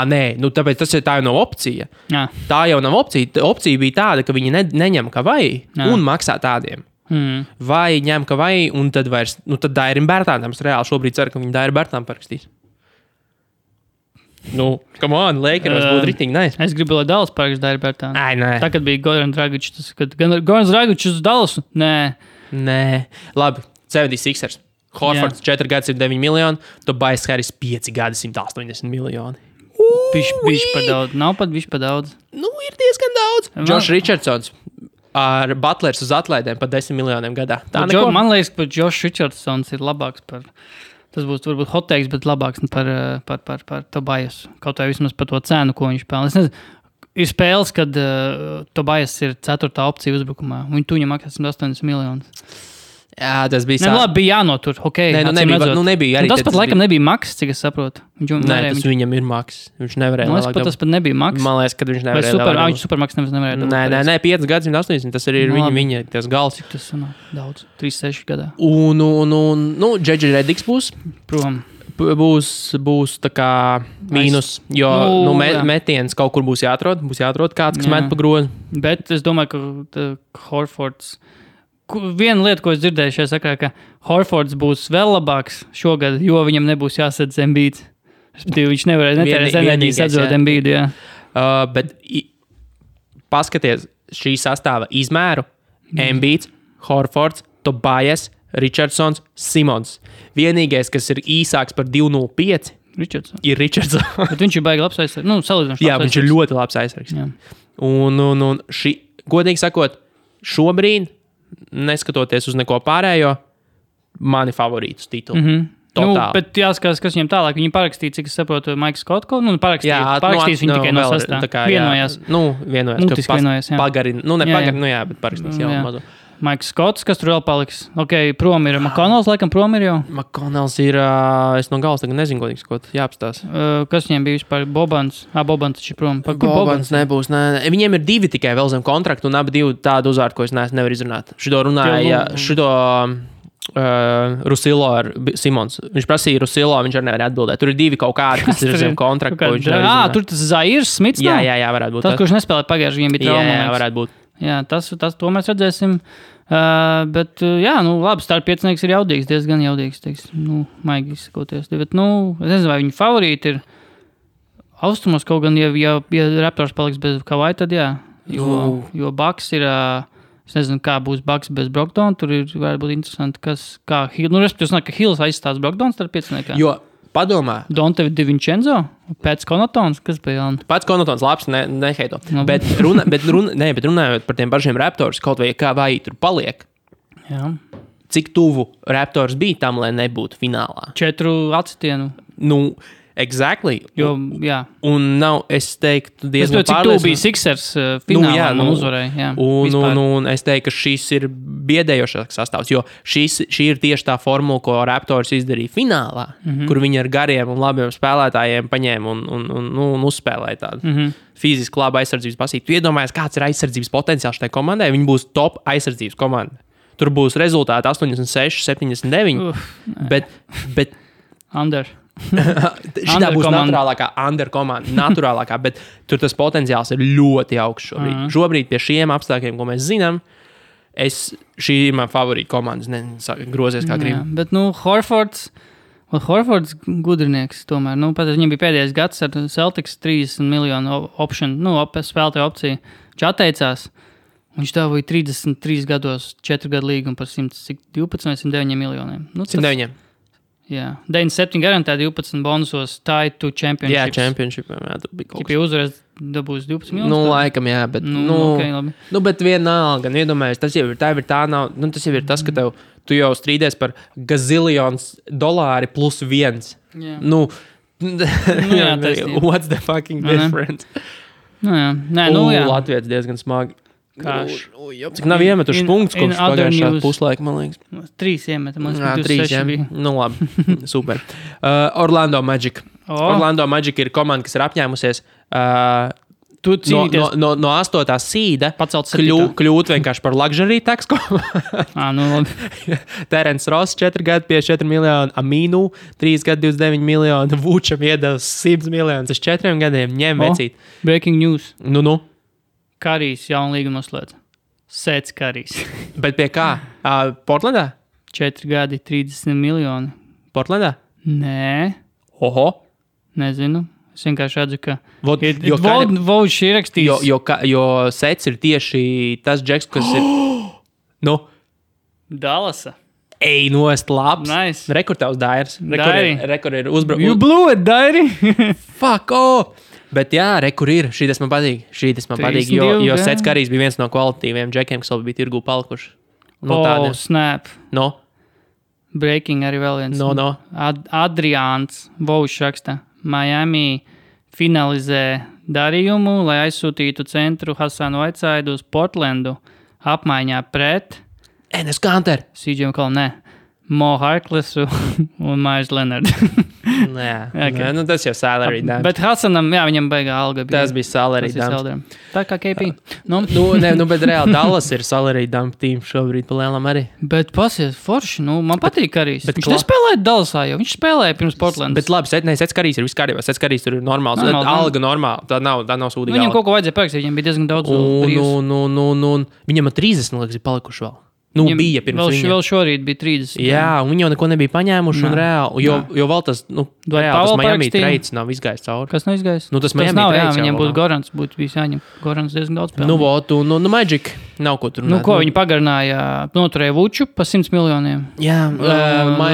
Nē, tāpēc tā jau nav opcija. Jā. Tā jau nav opcija. Opcija bija tāda, ka viņi neņem Kawhi un maksā tādiem. Vai ņem Kawhi un tad vairs, tad Dairim Bērtānam, es reāli šobrīd ceru, ka viņi Dairim Bērtām parakstīs. Come on, Lakeros būtu ritīgi nice. Es gribu, lai Dallas parakst Dairim Bērtānu. Nē. Tā, kad bija Goran Dragic, Goran Dragic uz Dallasu? Nē. Labi, 76ers. Horfords 4 gadi 109 miljoni, Tobias Harris 5 gadi 180 miljoni. Bišķi par daudz. Nav pat bišķi par daudz. Ir diezgan daudz. Josh Richardsons ar Butlers uz atlaidēm par 10 miljoniem gadā. Man liekas, ka Josh Richardsons ir labāks par... Tas būs varbūt hot takes, bet labāks par Tobias. Kaut vai vismaz par to cenu, ko viņš pelna. Es nezinu, ir spēles, kad Tobias ir 4. opcija uzbrukumā. Viņu maksā 180 miljonus. Jā, tas bija labi, bija jānotur. Okay, nebija arī. Tas pat laikam nebija maks, cik es saprotu. Viņam ir maks. Viņš nevarēja. Tas pat nebija maks. Man liekas, ka viņš nevarēja. Viņš supermaks nevarēja. Nē, 5 gadi 180. Tas arī ir viņa tas gals. Cik tas daudz? 3-6 gadā. Un Džedži Rediks būs. Prom. Būs tā kā mīnus, jo metiens kaut kur būs jāatrod. Būs jāatrod kāds, kas met pa grozu. Bet es domāju, ka Horfords... Viena lieta, ko es dzirdēju šajā sakarā, ka Horfords būs vēl labāks šogad, jo viņam nebūs jāsadz Embiid. Viņš nevarēs netērēs enerģijas atzot Embiid, jā. Bet paskaties šī sastāva izmēru. Embiid, Horfords, Tobias, Richardsons, Simons. Vienīgais, kas ir īsāks par 2.05, ir Richardsons. Bet viņš ir baigi labs aizsargs. Salīdzinoši. Jā, viņš ir ļoti labs aizsargs. Un godīgi sakot, šobrīd neskatoties uz neko pārējo, mani favorītus titulu. Bet jāskatās, kas viņam tālāk. Viņi parakstīja, cik es saprotu, Maiks Skotko. Parakstīs viņi tikai no sastāvā. Vienojās. Vienojās. Mutiski vienojās, jā. Bet parakstīs jau mazu. Maiks Skots, kas tur vēl paliks? Prom ir McConnells, laikam prom ir jau. McConnells ir, es no galas tagad nezinu, ko jāapstās. Kas viņiem bija vispār? Bobans? Bobans taču prom. Bobans nebūs, nē. Viņiem ir 2 tikai vēl zem kontraktu, un abi 2 tādu uzvārdu, ko es nevaru izrunāt. Šito runāja, Rusilo ar Simons. Viņš prasīja Rusilo, viņš arī nevar atbildēt. Tur ir 2 kaut kādi, kas ir zem kontraktu, ko viņš nevar izrunāt. Tur tas Zairs Smits? Jā, varētu būt. Tas, kurš nespēlē pagājuši, viņiem bija trauma. Jā, varētu būt. Jā, tas to mēs redzēsim. Bet, labi, starp piecinieks ir jaudīgs, diezgan jaudīgs, maigi izsakoties. Bet, es nezinu, vai viņa favorīti ir austrumos kaut gan, ja Raptors paliks bez Kawhi, tad jā. Jo Bucks ir, es nezinu, kā būs Bucks bez Brogdona, tur ir varētu būt interesanti, kā Hill, respektīvi, ka Hills aizstās Brogdons starp pieciniekā. Jo, padomā. Donte DiVincenzo, Pēc Connaughtons, kas bija jauna? Pēc Connaughtons labs, neheito. Bet runājot par tiem pašiem Raptors, kaut vai kā vai tur paliek. Jā. Cik tuvu Raptors bija tam, lai nebūtu finālā? 4 atsitienu. Exactly. Jo, jā. Un nav, es teiktu, diezgan cik tuvu bija Sixers finālā un uzvarēja. Un es teiktu, ka šis ir biedējošāks sastāvs, jo šī ir tieši tā formula, ko Raptors izdarīja finālā, kur viņi ar gariem un labiem spēlētājiem paņēma un uzspēlēja tādu fiziski labu aizsardzības pasīti. Tu iedomājies, kāds ir aizsardzības potenciāls šai komandai? Viņi būs top aizsardzības komanda. Tur būs rezultāti 86, 79, bet under. Šitā būs under komanda, bet tur tas potenciāls ir ļoti augsts šobrīd. Šobrīd pie šiem apstākļiem, ko mēs zinām, šī ir man favorīta komanda, grozies kā gribu. Bet, Horfords gudrinieks tomēr. Pat viņam bija pēdējais gads ar Celtics 30 miljonu option, spēlētāju opciju. Viņš atteicās. Viņš dabūja 33 gados 4 gadu līgumu par 112 vai 109 miljoniem. 109. Jā, 97 garantē 12 bonusos tied to championships. Jā, championshipiem, jā, tur bija kaut kas. Ja pie uzvaras dabūs 12 miljonus? Laikam, jā, bet, okay, labi. Bet vienalga, iedomājies, tas jau ir tas jau ir tas, ka tu jau strīdies par gazilions dolāri plus 1. Jā. What's the fucking difference? Nē, Latvijas diezgan smagi. Cik nav iemetuši punktus, kopš pagājušā puslaika, man liekas. 3 iemeta, man liekas, 3 bija. Nu labi, super. Orlando Magic. Orlando Magic ir komanda, kas ir apņēmusies no 8. sīda kļūt vienkārši par luxury tax komandu. Terence Ross 4 gadi 54 miljoni, Aminu 3 gadi 29 miljoni, Vučam iedevs 100 miljonus uz 4 gadiem. Ņem vecīt. Breaking news. Nu. Karijs jaunu līgumu noslēdz. Sets Karijs. Bet pie kā? Portlandā? 4 gadi 30 miljoni. Portlandā? Nē. Oho. Nezinu. Es vienkārši redzu, ka Vauds ir rakstījis. Jo Sets ir tieši tas džeks, kas ir... Nu? Dallasa. Ej, nost labs. Nice. Rekord tavs Dairis. Rekord ir uzbraukt. You blew it, Dairi. Fuck off. Bet jā, kur ir. Šī tas man patīk. Jo Sets Karijs bija viens no kvalitīviem džekiem, kas vēl bija tirgū palikuši. Snap. No. Breaking arī vēl viens. No. Adriāns Vauš raksta. Miami finalizē darījumu, lai aizsūtītu centru Hasanu Whiteside uz Portlandu apmaiņā pret Enes Kanter. CJ McCollum, ne. Mo Harklessu un Myers Leonard. Nē, nu tas jau salary dump. Bet Hasanam, jā, viņam baigā alga bija. Tas bija salary dump. Tā kā KP. Bet reāli Dallas ir salary dump team šobrīd pa lielam arī. Bet pasies forši, man patīk Karijs. Viņš nespēlēja Dallasā jau, viņš spēlēja pirms Portlandas. Bet labi, Sets Karijs ir viss kārībā, Sets Karijs tur ir normāls. Alga normāla, tā nav sūdīga. Viņam kaut ko vajadzēja parakstīt, viņam bija diezgan daudz brīvs. Viņam 30, liekas, ir palikuši vēl. Bija pirms viņa. Vēl šorīt bija 30. Jā, un viņi jau neko nebija paņēmuši un reāli. Jo vēl tas, reāli tas Miami trades nav izgājis cauri. Kas nav izgājis? Tas Miami trades viņam būtu Gorans, būtu bijis jāņem. Gorans diezgan daudz spēlē. Magic nav ko tur runāt. Ko viņi pagarināja, noturēja Vuču pa 100 miljoniem. Jā,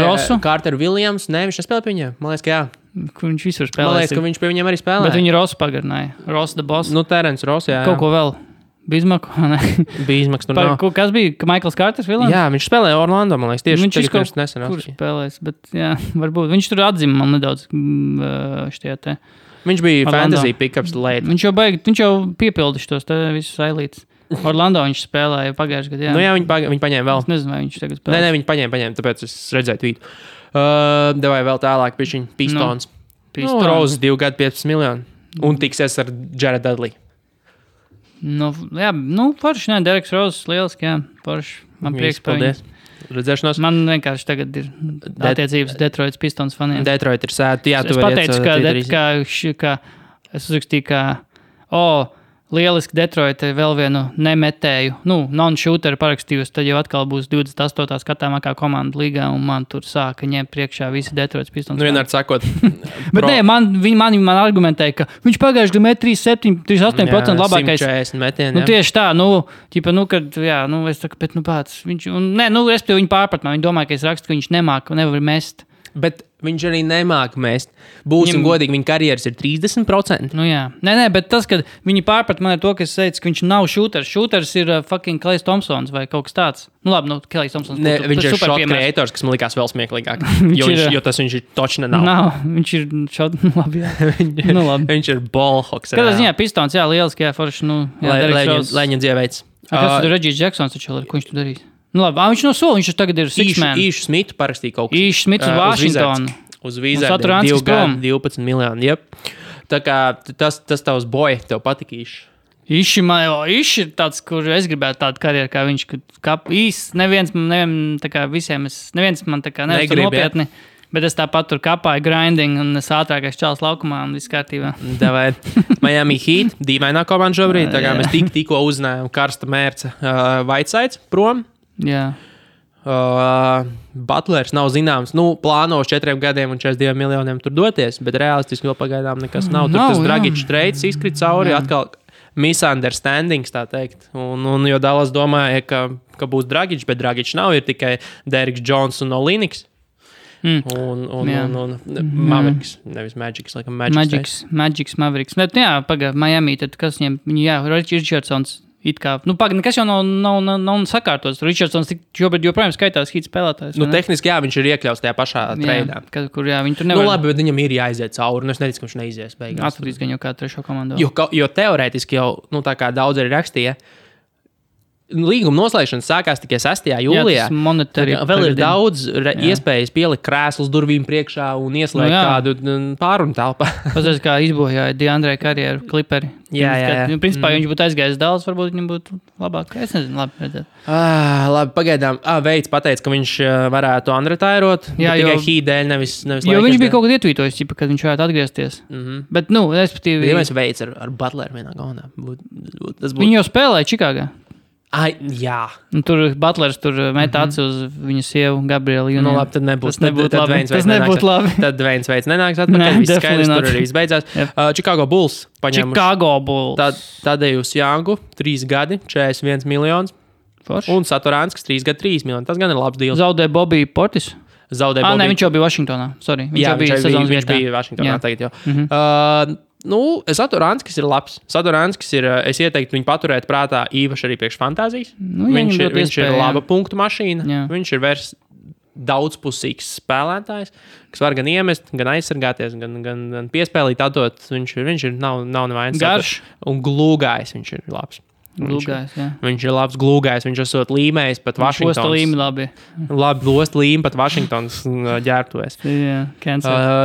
Rosu. Carter Williams, viņš nespēlē pie viņiem. Man liekas, ka jā. Kur viņš visur spēlē. Man liekas, ka viņš pie viņiem arī spēlē. Bet viņi Rosu pagarināja. Ross the boss. Terence Ross, jā. Kaut ko vēl. Bismaks, tur nav. Kas bija? Michaels Carters Vilans? Jā, viņš spēlēja Orlando, man liekas, tieši viņš pirms nesen. Kur spēlēs, bet jā, varbūt. Viņš tur atzima man nedaudz štie te. Viņš bija Orlando. Fantasy pickups late. Viņš jau piepildi šos te visus ailītes. Orlando viņš spēlēja pagājušajā gadā. Jā, viņi paņēma vēl. Es nezinu, vai viņš tagad spēlēs. Nē, viņi paņēma, tāpēc es redzēju tvītu. Devai vēl tālāk pie viņa Pistons. Rose 2 gadi 15 miljoni. Un tiksies ar Jared Dudley. Forši, Dereks Roses, lieliski, jā, forši. Man prieks par viņu. Redzēšanos. Man vienkārši tagad ir attiecības Detroits Pistons faniem. Detroit ir sēta, jā, tu vari iet. Es pateicu, ka es uzrakstīju, ka, lieliski Detroit vēl vienu nemetēju, non-shooteru parakstījusi, tad jau atkal būs 28. skatāmākā komanda līgā, un man tur sāka ņemt priekšā visi Detroits Pistons. Vienādi sakot. Bet nē, man argumentēja, ka viņš pagājuši gadu met 38% labākais. 140 metieni, jā. Tieši tā, kad, jā, es saku, bet, pats, viņš, respektīvi viņi pārprat man, viņi domāja, ka es rakstu, ka viņš nevar mest. Bet viņš arī nemāk mest. Būsim godīgi, viņa karjeras ir 30%. Jā. Nē, bet tas, kad viņi pārprat man ar to, ka es teicu, ka viņš nav šūters. Šūters ir fucking Klajs Thompsons vai kaut kas tāds. Klajs Thompsons. Viņš ir shot creators, kas man likās vēl smieklīgāk. jo tas viņš ir točna nav. Viņš ir shot, labi, jā. Viņš ir ballhawks. Kādā ziņā Pistons, jā, lieliski, jā, forši, Lēņa dzieveids. Kas tur Regis Jacksons, ko viņš tur darīs? Viņš no sola, viņš tagad ir six-man. Īšu Smitu parakstīja kaut kas. Īšu Smits uz Washingtonu. Uz Wizardiem 2 gadi 12 miljoni. Jep. Tā kā tas tavs boy, tev patika īši. Īši ir tāds, kur es gribētu tādu karjeru, kā viņš. Neviens man tā kā nevar nopietni. Bet es tāpat tur kapāju grinding un es ātrākais čāls laukumā un viss kārtībā. Davai. Miami Heat, dīvainā komanda šobrīd. Tā kā mēs tikko uzzinājām karsta mērca Whitesides prom. Jā. Butlers nav zināms. Plāno uz 4 gadiem un 42 miljoniem tur doties, bet realistiski vēl pagaidām nekas nav. Tur tas Dragic trades izkrit cauri, atkal misunderstandings, tā teikt. Un jo Dallas domāja, ka būs Dragic, bet Dragic nav, ir tikai Derrick Jones un Olynyks. Un Mavericks, nevis Magics, laikam Magics Mavericks. Bet jā, Miami, tad kas viņiem, jā, Richardsons It kā, nekas jau nav sakārtots. Richardsons šobrīd joprojām skaitās hit spēlētājs. Tehniski, jā, viņš ir iekļauts tajā pašā treidā. Kur, jā, viņi tur nevar. Labi, bet viņam ir jāiziet cauri. Es neticu, ka viņš neizies beigās. Atradīs gan jau kā trešo komandu. Jo teorētiski jau, tā kā daudz arī rakstīja, līguma noslēgšana sākās tikai 6. jūlijā. Vēl ir daudz iespējas pielikt krēslus durvīm priekšā un ieslēgt kādu pārunu telpā. Pastāst, kā izbojāja Deandre karjeru Clipperi. Jā. Principā, ja viņš būtu aizgājis Dallas, varbūt viņam būtu labāk. Es nezinu, labi redzēt. Labi, pagaidām. Veids pateica, ka viņš varētu unretairot. Tikai Heat dēļ, nevis jo viņš bija kaut kad ietvītojis, ka viņš varētu atgriezties. Bet, respektīvi... Ja mēs Veids ar Butleru vienā gaunā. Viņi jau spēlēja Čikāgā. Jā. Tur Butlers met aci uz viņa sievu Gabrielu. Labi, tad nebūs labi. Tas nebūtu labi. Tad Dwaynes Veids nenāks atpakaļ. Viss skaidrs, tur arī viss beidzās. Chicago Bulls paņēmuši Tadejus Jangu, 3 gadi, 41 miljonus. Un Satoranskis 3 gadi, 3 miljoni. Tas gan ir labs deals. Zaudē Bobby Portis. Viņš jau bija Vašingtonā. Sorry. Viņš bija Vašingtonā tagad jau. Satoranskis ir labs. Satoranskis ir, es ieteiktu viņu paturēt prātā īpaši arī priekš fantāzijas. Viņš ir laba punktu mašīna. Jā. Viņš ir daudzpusīgs spēlētājs, kas var gan iemest, gan aizsargāties, gan piespēlīt, atdot. Viņš nav nevainas. Garš. Un glūgājs viņš ir labs. Viņš ir labs glūgājs, viņš esot līmējis pat Vašingtons. Losta līmi labi. Labi, losta līmi pat Vašingtons ģērbtuvēs.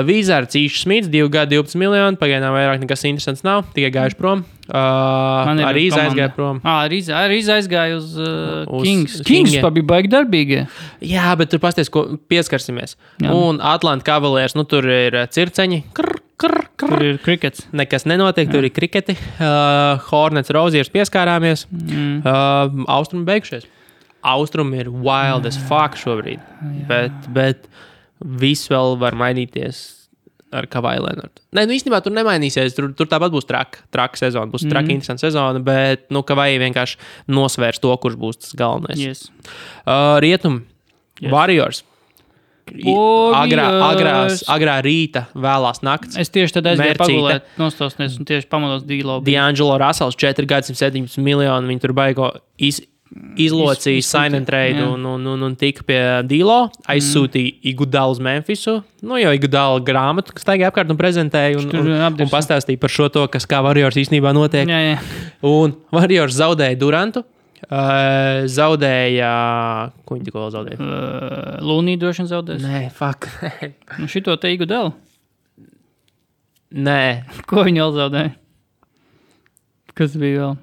Wizards Īšs Smits, 2 gadi, 12 miljoni, pagaidām vairāk nekas interesants nav, tikai gājuši prom. Arī aizgāja prom. Arī aizgāja uz Kings. Kings bija baigi darbīgi. Jā, bet tur pasties, ko pieskarsimies. Un Atlanta Cavaliers, tur ir circeņi. Tur ir krikets. Nekas nenotiek, tur ir kriketi. Hornets, Roziers pieskārāmies. Austrumi beigušies. Austrumi ir wild as fuck šobrīd. Bet viss vēl var mainīties ar Kawhi Leonardu. Īstenībā tur nemainīsies. Tur tāpat būs traka sezona. Būs traka interesanta sezona, bet Kawhi vienkārši nosvērs to, kurš būs tas galvenais. Yes. Rietumi. Yes. Warriors. Agrā rīta, vēlās nakts. Es tieši tad aizgāju pagulēt, nostosties un tieši pamodos D-Lo. D'Angelo Russells 4 gadi, 117 miljoni. Viņi tur baigo izlocīja sign and trade un tika pie D-Lo. Aizsūtīja Iguodala uz Memphisu. Jo Iguodala grāmatu, kas taigā apkārt un prezentēja un pastāstīja par šo to, kas kā Warriors īstenībā notiek. Jā. Un Warriors zaudēja Durantu. Zaudēja... Ko viņi tikko zaudēja? Lūnī droši vien zaudēs. Nē, fuck. Šito te Iguodala? Nē. Ko viņi vēl zaudēja? Kas bija vēl?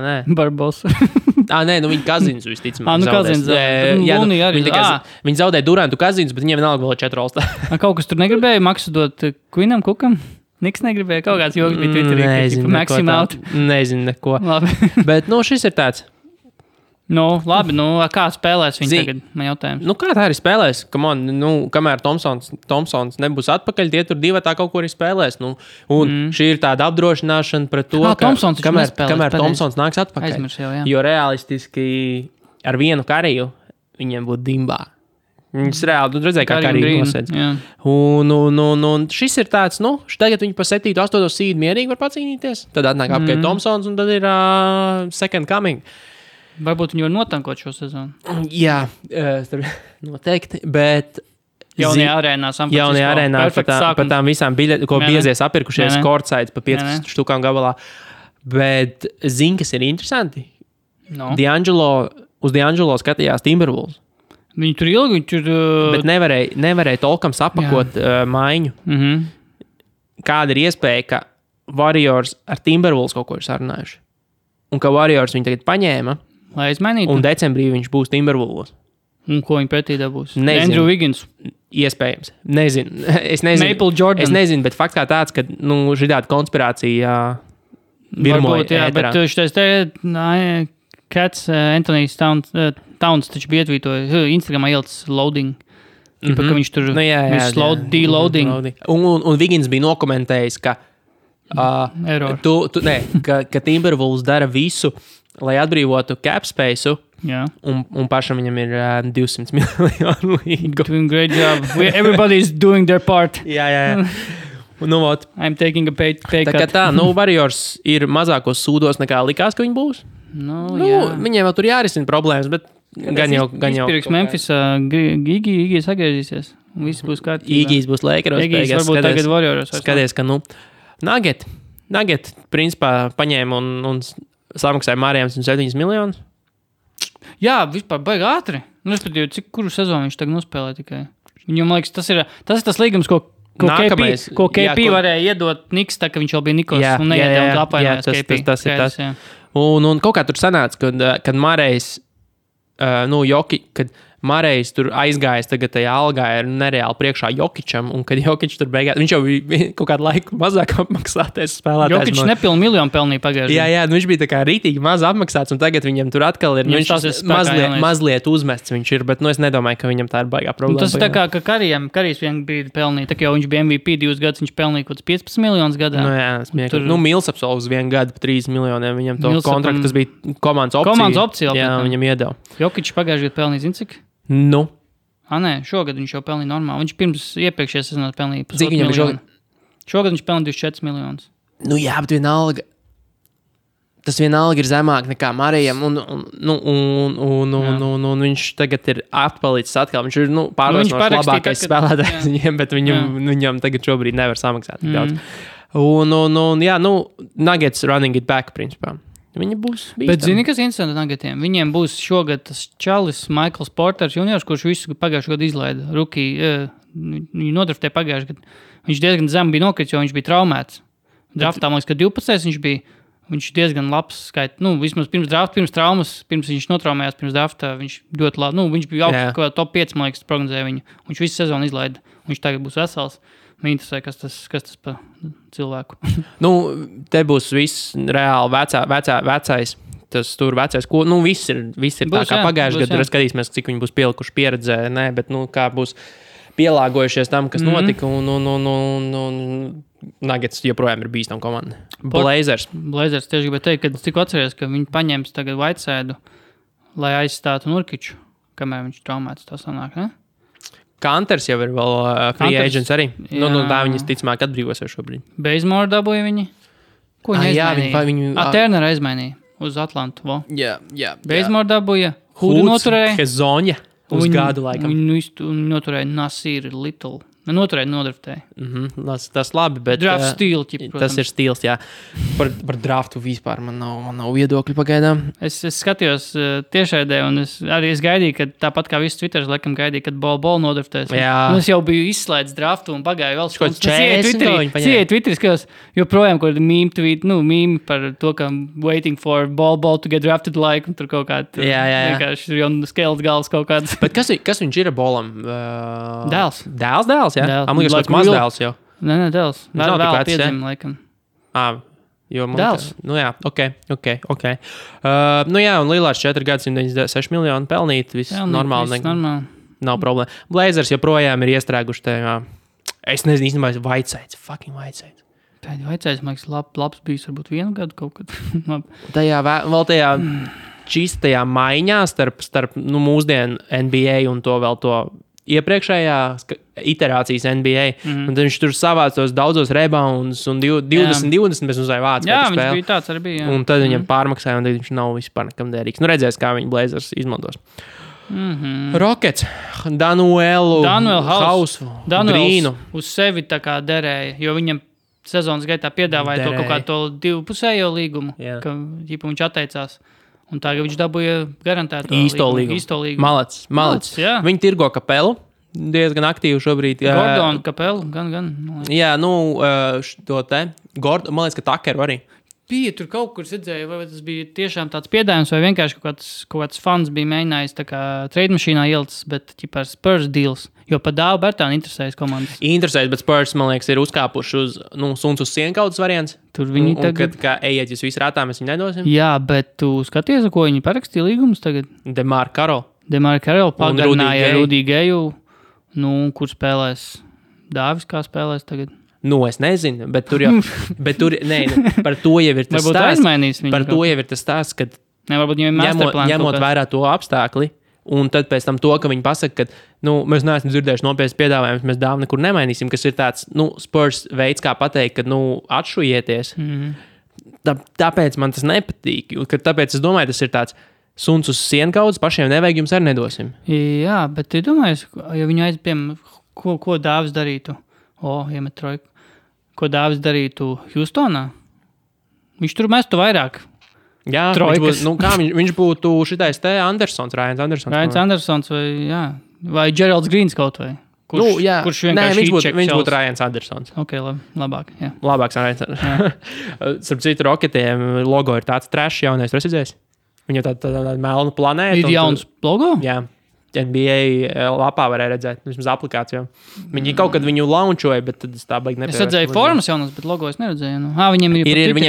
Nē. Barbosa. Viņi Kazins visticamāk zaudēs. Lūnī arī. Viņi zaudēja Durantu Kazins, bet viņiem vienalga vēl 4 All-Star. Kaut kas tur negribēja maksu dot Queenam Cookam? Niks negribēja, kaut kāds joks bija Twitterī. Nezinu neko. Bet šis ir tāds. Labi, kā spēlēs viņi tagad? Man jautājums. Kā tā arī spēlēs? Kamēr Thompsons nebūs atpakaļ, tie tur divatā kaut ko arī spēlēs. Šī ir tāda apdrošināšana pret to, kamēr Thompsons nāks atpakaļ. Aizmirs jau, jā. Jo realistiski ar vienu kariju viņiem būtu dimbā. Viņus reāli redzēja, kā kariju nosēdz. Un šis ir tāds, tagad viņi pa 7. 8. seed mierīgi var pacīnīties. Tad atnāk apkārt Thompsons un tad ir second coming. Varbūt viņi var notankot šo sezonu. Jā, noteikti, bet... Jaunajā arēnā par tām visām biļetēm, ko biezies apirkušies courtsides pa 15 štukām gabalā. Bet zini, kas ir interesanti? Uz D'Angelo skatījās Timberwolves. Viņi tur ilgi, Bet nevarēja tolkam sapakot maiņu. Kāda ir iespēja, ka Warriors ar Timberwolves kaut ko ir sarunājuši? Un ka Warriors viņi tagad paņēma, lai izmainītu. Un decembrī viņš būs Timberwolves. Un ko viņi pretī dabūs? Nezinu. Andrew Wiggins. Iespējams. Nezinu. Es nezinu. Maple Jordan. Es nezinu, bet fakts kā tāds, ka šitāda konspirācija virmoja ēterā. Bet šitais te Cats, Anthony's Towns taču bija ietvītoja Instagramā ielicis loading. Ka viņš tur de-loading. Un Wiggins bija nokomentējis, ka ka Timberwolves dara visu, lai atbrīvotu cap spaceu, un pašam viņam ir 200 miljonu līgu. Doing great job. Everybody's doing their part. Jā. I'm taking a pay cut. Tā kā Warriors ir mazākos sūdos nekā likās, ka viņi būs. Viņiem vēl tur jārisina problēmas, bet gan jau. Izpirks Memphisā, Iggy sagriezīsies. Viss būs kārtībā. Iggy's būs Lakeros. Iggy's varbūt tagad Warrioros. Skaties, ka, Nugget, principā, paņēma un samaksāja Mārijām 107 miljonus. Jā, vispār baigi ātri. Respektīvi, kuru sezonu viņš tagad nospēlē tikai. Viņam, liekas, tas ir tas līgums, ko KP varēja iedot Niks, tā ka viņš jau bija Nikos un neiedēja un apvainojās KP. Tas ir tas. Un kaut kā tur sanāca, kad Mārējs, kad Mārējs tur aizgājis tagad tajā algā ir nereāli priekšā Jokičam, un kad Jokič tur beigās, viņš jau bija kaut kādu laiku mazāk apmaksātais spēlētājs. Jokič nepilnu miljonu pelnīja pagājušajā. Jā, viņš bija tā kā rītīgi maz apmaksāts, un tagad viņam tur atkal ir, mazliet uzmests viņš ir, bet es nedomāju, ka viņam tā ir baigā problēma. Tas ir tā kā, ka Karijs vien brīdi pelnīja, tā kā jau viņš bija MVP 2 gadus, viņš pelnīja kaut 15 miljonus gadā. Mils apsolus 1 gadu pa 3 miljoniem, viņam to kontraktu, tas bija komandas opcija. Jā, viņam iedeva. Jokič pagājušajā gadā pelnīja, zini cik? Nē, šogad viņš jau pelnīja normāli. Viņš pirms iepriekšējā sezonā pelnīja 1,5 miljonu. Šogad viņš pelnīja 24 miljonus. Jā, bet vienalga. Tas vienalga ir zemāk nekā Marijam. Un viņš tagad ir atpalicis atkal. Viņš ir pārliecinoši labākais spēlētājs viņiem, bet viņam tagad šobrīd nevar samaksāt tik daudz. Nuggets running it back, principā. Viņi būs bīstami. Bet zini, kas interesanti Nuggetiem? Viņiem būs šogad tas čalis Michaels Porters juniors, kurš visu pagājušajā gadu izlaida. Viņu nodraftēja pagājušajā gadu. Viņš diezgan zem bija nokrits, jo viņš bija traumēts. Draftā, man liekas, ka 12. Viņš diezgan labs skait. Vismaz pirms traumas, pirms viņš notraumējās pirms draftā, viņš ļoti labi. Viņš bija augsts, kā top 5, man liekas, prognozēja viņu. Viņš visu sezonu izlaida. Viņš tagad būs vesels. Man interesē, kas tas pa cilvēku. Te būs viss reāli vecais. Tas tur vecais, ko, viss ir būs, tā kā pagājušajā gadā. Skatīsimies, cik viņi būs pielikuši pieredzē, bet, kā būs pielāgojušies tam, kas notika, un Nuggets joprojām ir bīstama komanda. Blazers tieši gribēju teikt, ka tikko atceries, ka viņi paņems tagad Whiteside, lai aizstātu Nurkiču, kamēr viņš traumēts, tā sanāk, ne? Kanters jau ir vēl free agents arī. Tā viņas ticamāk atbrīvosies šobrīd. Bazemore dabūja viņi. Ko viņi aizmainīja? Turner aizmainīja uz Atlantu. Jā. Bazemore dabūja. Hudu noturēja. Hezonja uz gadu laikam. Viņu noturēja Nasir Little. Noturēja nodraftēja. Tas labi, bet... Draft stīl, protams. Tas ir stīls, jā. Par draftu vispār man nav viedokļi pagaidām. Es skatījos tiešraidē, un es gaidīju, ka tāpat kā viss Twitteris, laikam gaidīju, kad Ball nodraftēs. Es jau biju izslēdz draftu un pagāju vēl skundas. Sieja Twitteris, ka joprojām kaut kāda mīme par to, ka waiting for Ball to get drafted like, un tur kaut kāda... Vienkārši jau skelts galvas kaut kāds. Bet kas viņš ir Ballam? Dēls? Jā, man liekas, tāds mazdēls jau. Nē, dēls. Vēl piedzim, laikam. Dēls? Ok. Un Lillards 4 gadu 196 miljonu pelnīt, viss normāli. Nav problēma. Blazers joprojām ir iestrēguši tajā. Es nezinu, īstenībā, Whiteside. Fucking Whiteside. Whiteside, man liekas, labs bijis varbūt 1 gadu kaut kad. tajā čistajā maiņā starp mūsdienu NBA un to vēl to iepriekšējā iterācijas NBA. Un tad viņš tur savāc tos daudzos rebounds un 20 bez uzvāja vācu. Jā, viņš bija tāds arī bija. Jā. Un tad viņam pārmaksāja, un tad viņš nav vispār nekam derīgs. Redzēs, kā viņi Blazers izmantos. Rockets, Danuelu, Hausu, Grīnu. Uz sevi tā kā derēja, jo viņam sezonas gaitā piedāvāja to kaut kā to divpusējo līgumu, ka viņš atteicās. Un tagad viņš dabūja garantēto īsto līgumu. Malacis. Viņi tirgo Kapelu. Diezgan aktīvi šobrīd. Gordonu Kapelu, gan. Jā, to te. Man liekas, ka Takeru arī. Bija tur kaut kur redzēju, vai tas bija tiešām tāds piedāvājums, vai vienkārši kaut kāds fans bija mēģinājis tā kā trade mašīnā ielicis, bet ķipā Spurs deals. Jo pa Dāvu Bertānu interesējas komandas. Interesējas, bet Spurs, man liekas, ir uzkāpuši uz suns uz sienkaudas variants. Tur viņi tagad... Kad, kā ejiet, jūs visi rātā, mēs viņu nedosim. Jā, bet tu skaties, ko viņi parakstīja līgumus tagad? Demar Karol pagarināja Rudy Geju. Kur spēlēs? Dāvis kā spēlēs tagad? Es nezinu, bet tur jau... par to jau ir tas stāsts. Par to jau ir tas stāsts, kad ņemot vērā to apstākli, un tad pēc tam to, ka viņi pasaka, ka mēs neesam dzirdējuši nopietnas piedāvājumus, mēs Dāvu nekur nemainīsim, kas ir tāds Spurs veids, kā pateikt, ka atšujieties. tāpēc man tas nepatīk. Tāpēc es domāju, tas ir tāds suns uz sienkaudzes, pašiem nevajag, jums arī nedosim. Jā, bet tu domāji, ja viņu aizpiem, ko Dāvis darītu? Iemet trojku. Ko Dāvis darītu Hjustonā? Viņš tur mestu vairāk. Jā, viņš būtu šitais te Ryans Andersons vai Geralds Greens kaut vai. Kurš vienkārši viņš būtu Ryans Andersons. Ok, labāk. Jā. Labāks Ryans Andersons. Starp citu, Rocketiem logo ir tāds trash jaunais, tu esi redzējis? Viņam tāda melna planēta. Ir jauns logo? Jā. NBA lapā varēja redzēt, vismaz aplikācijā. Viņi kaut kad viņu launčoja, bet tad es tā baigi nepievērstu. Es redzēju formas jaunas, bet logo es neredzēju. Viņiem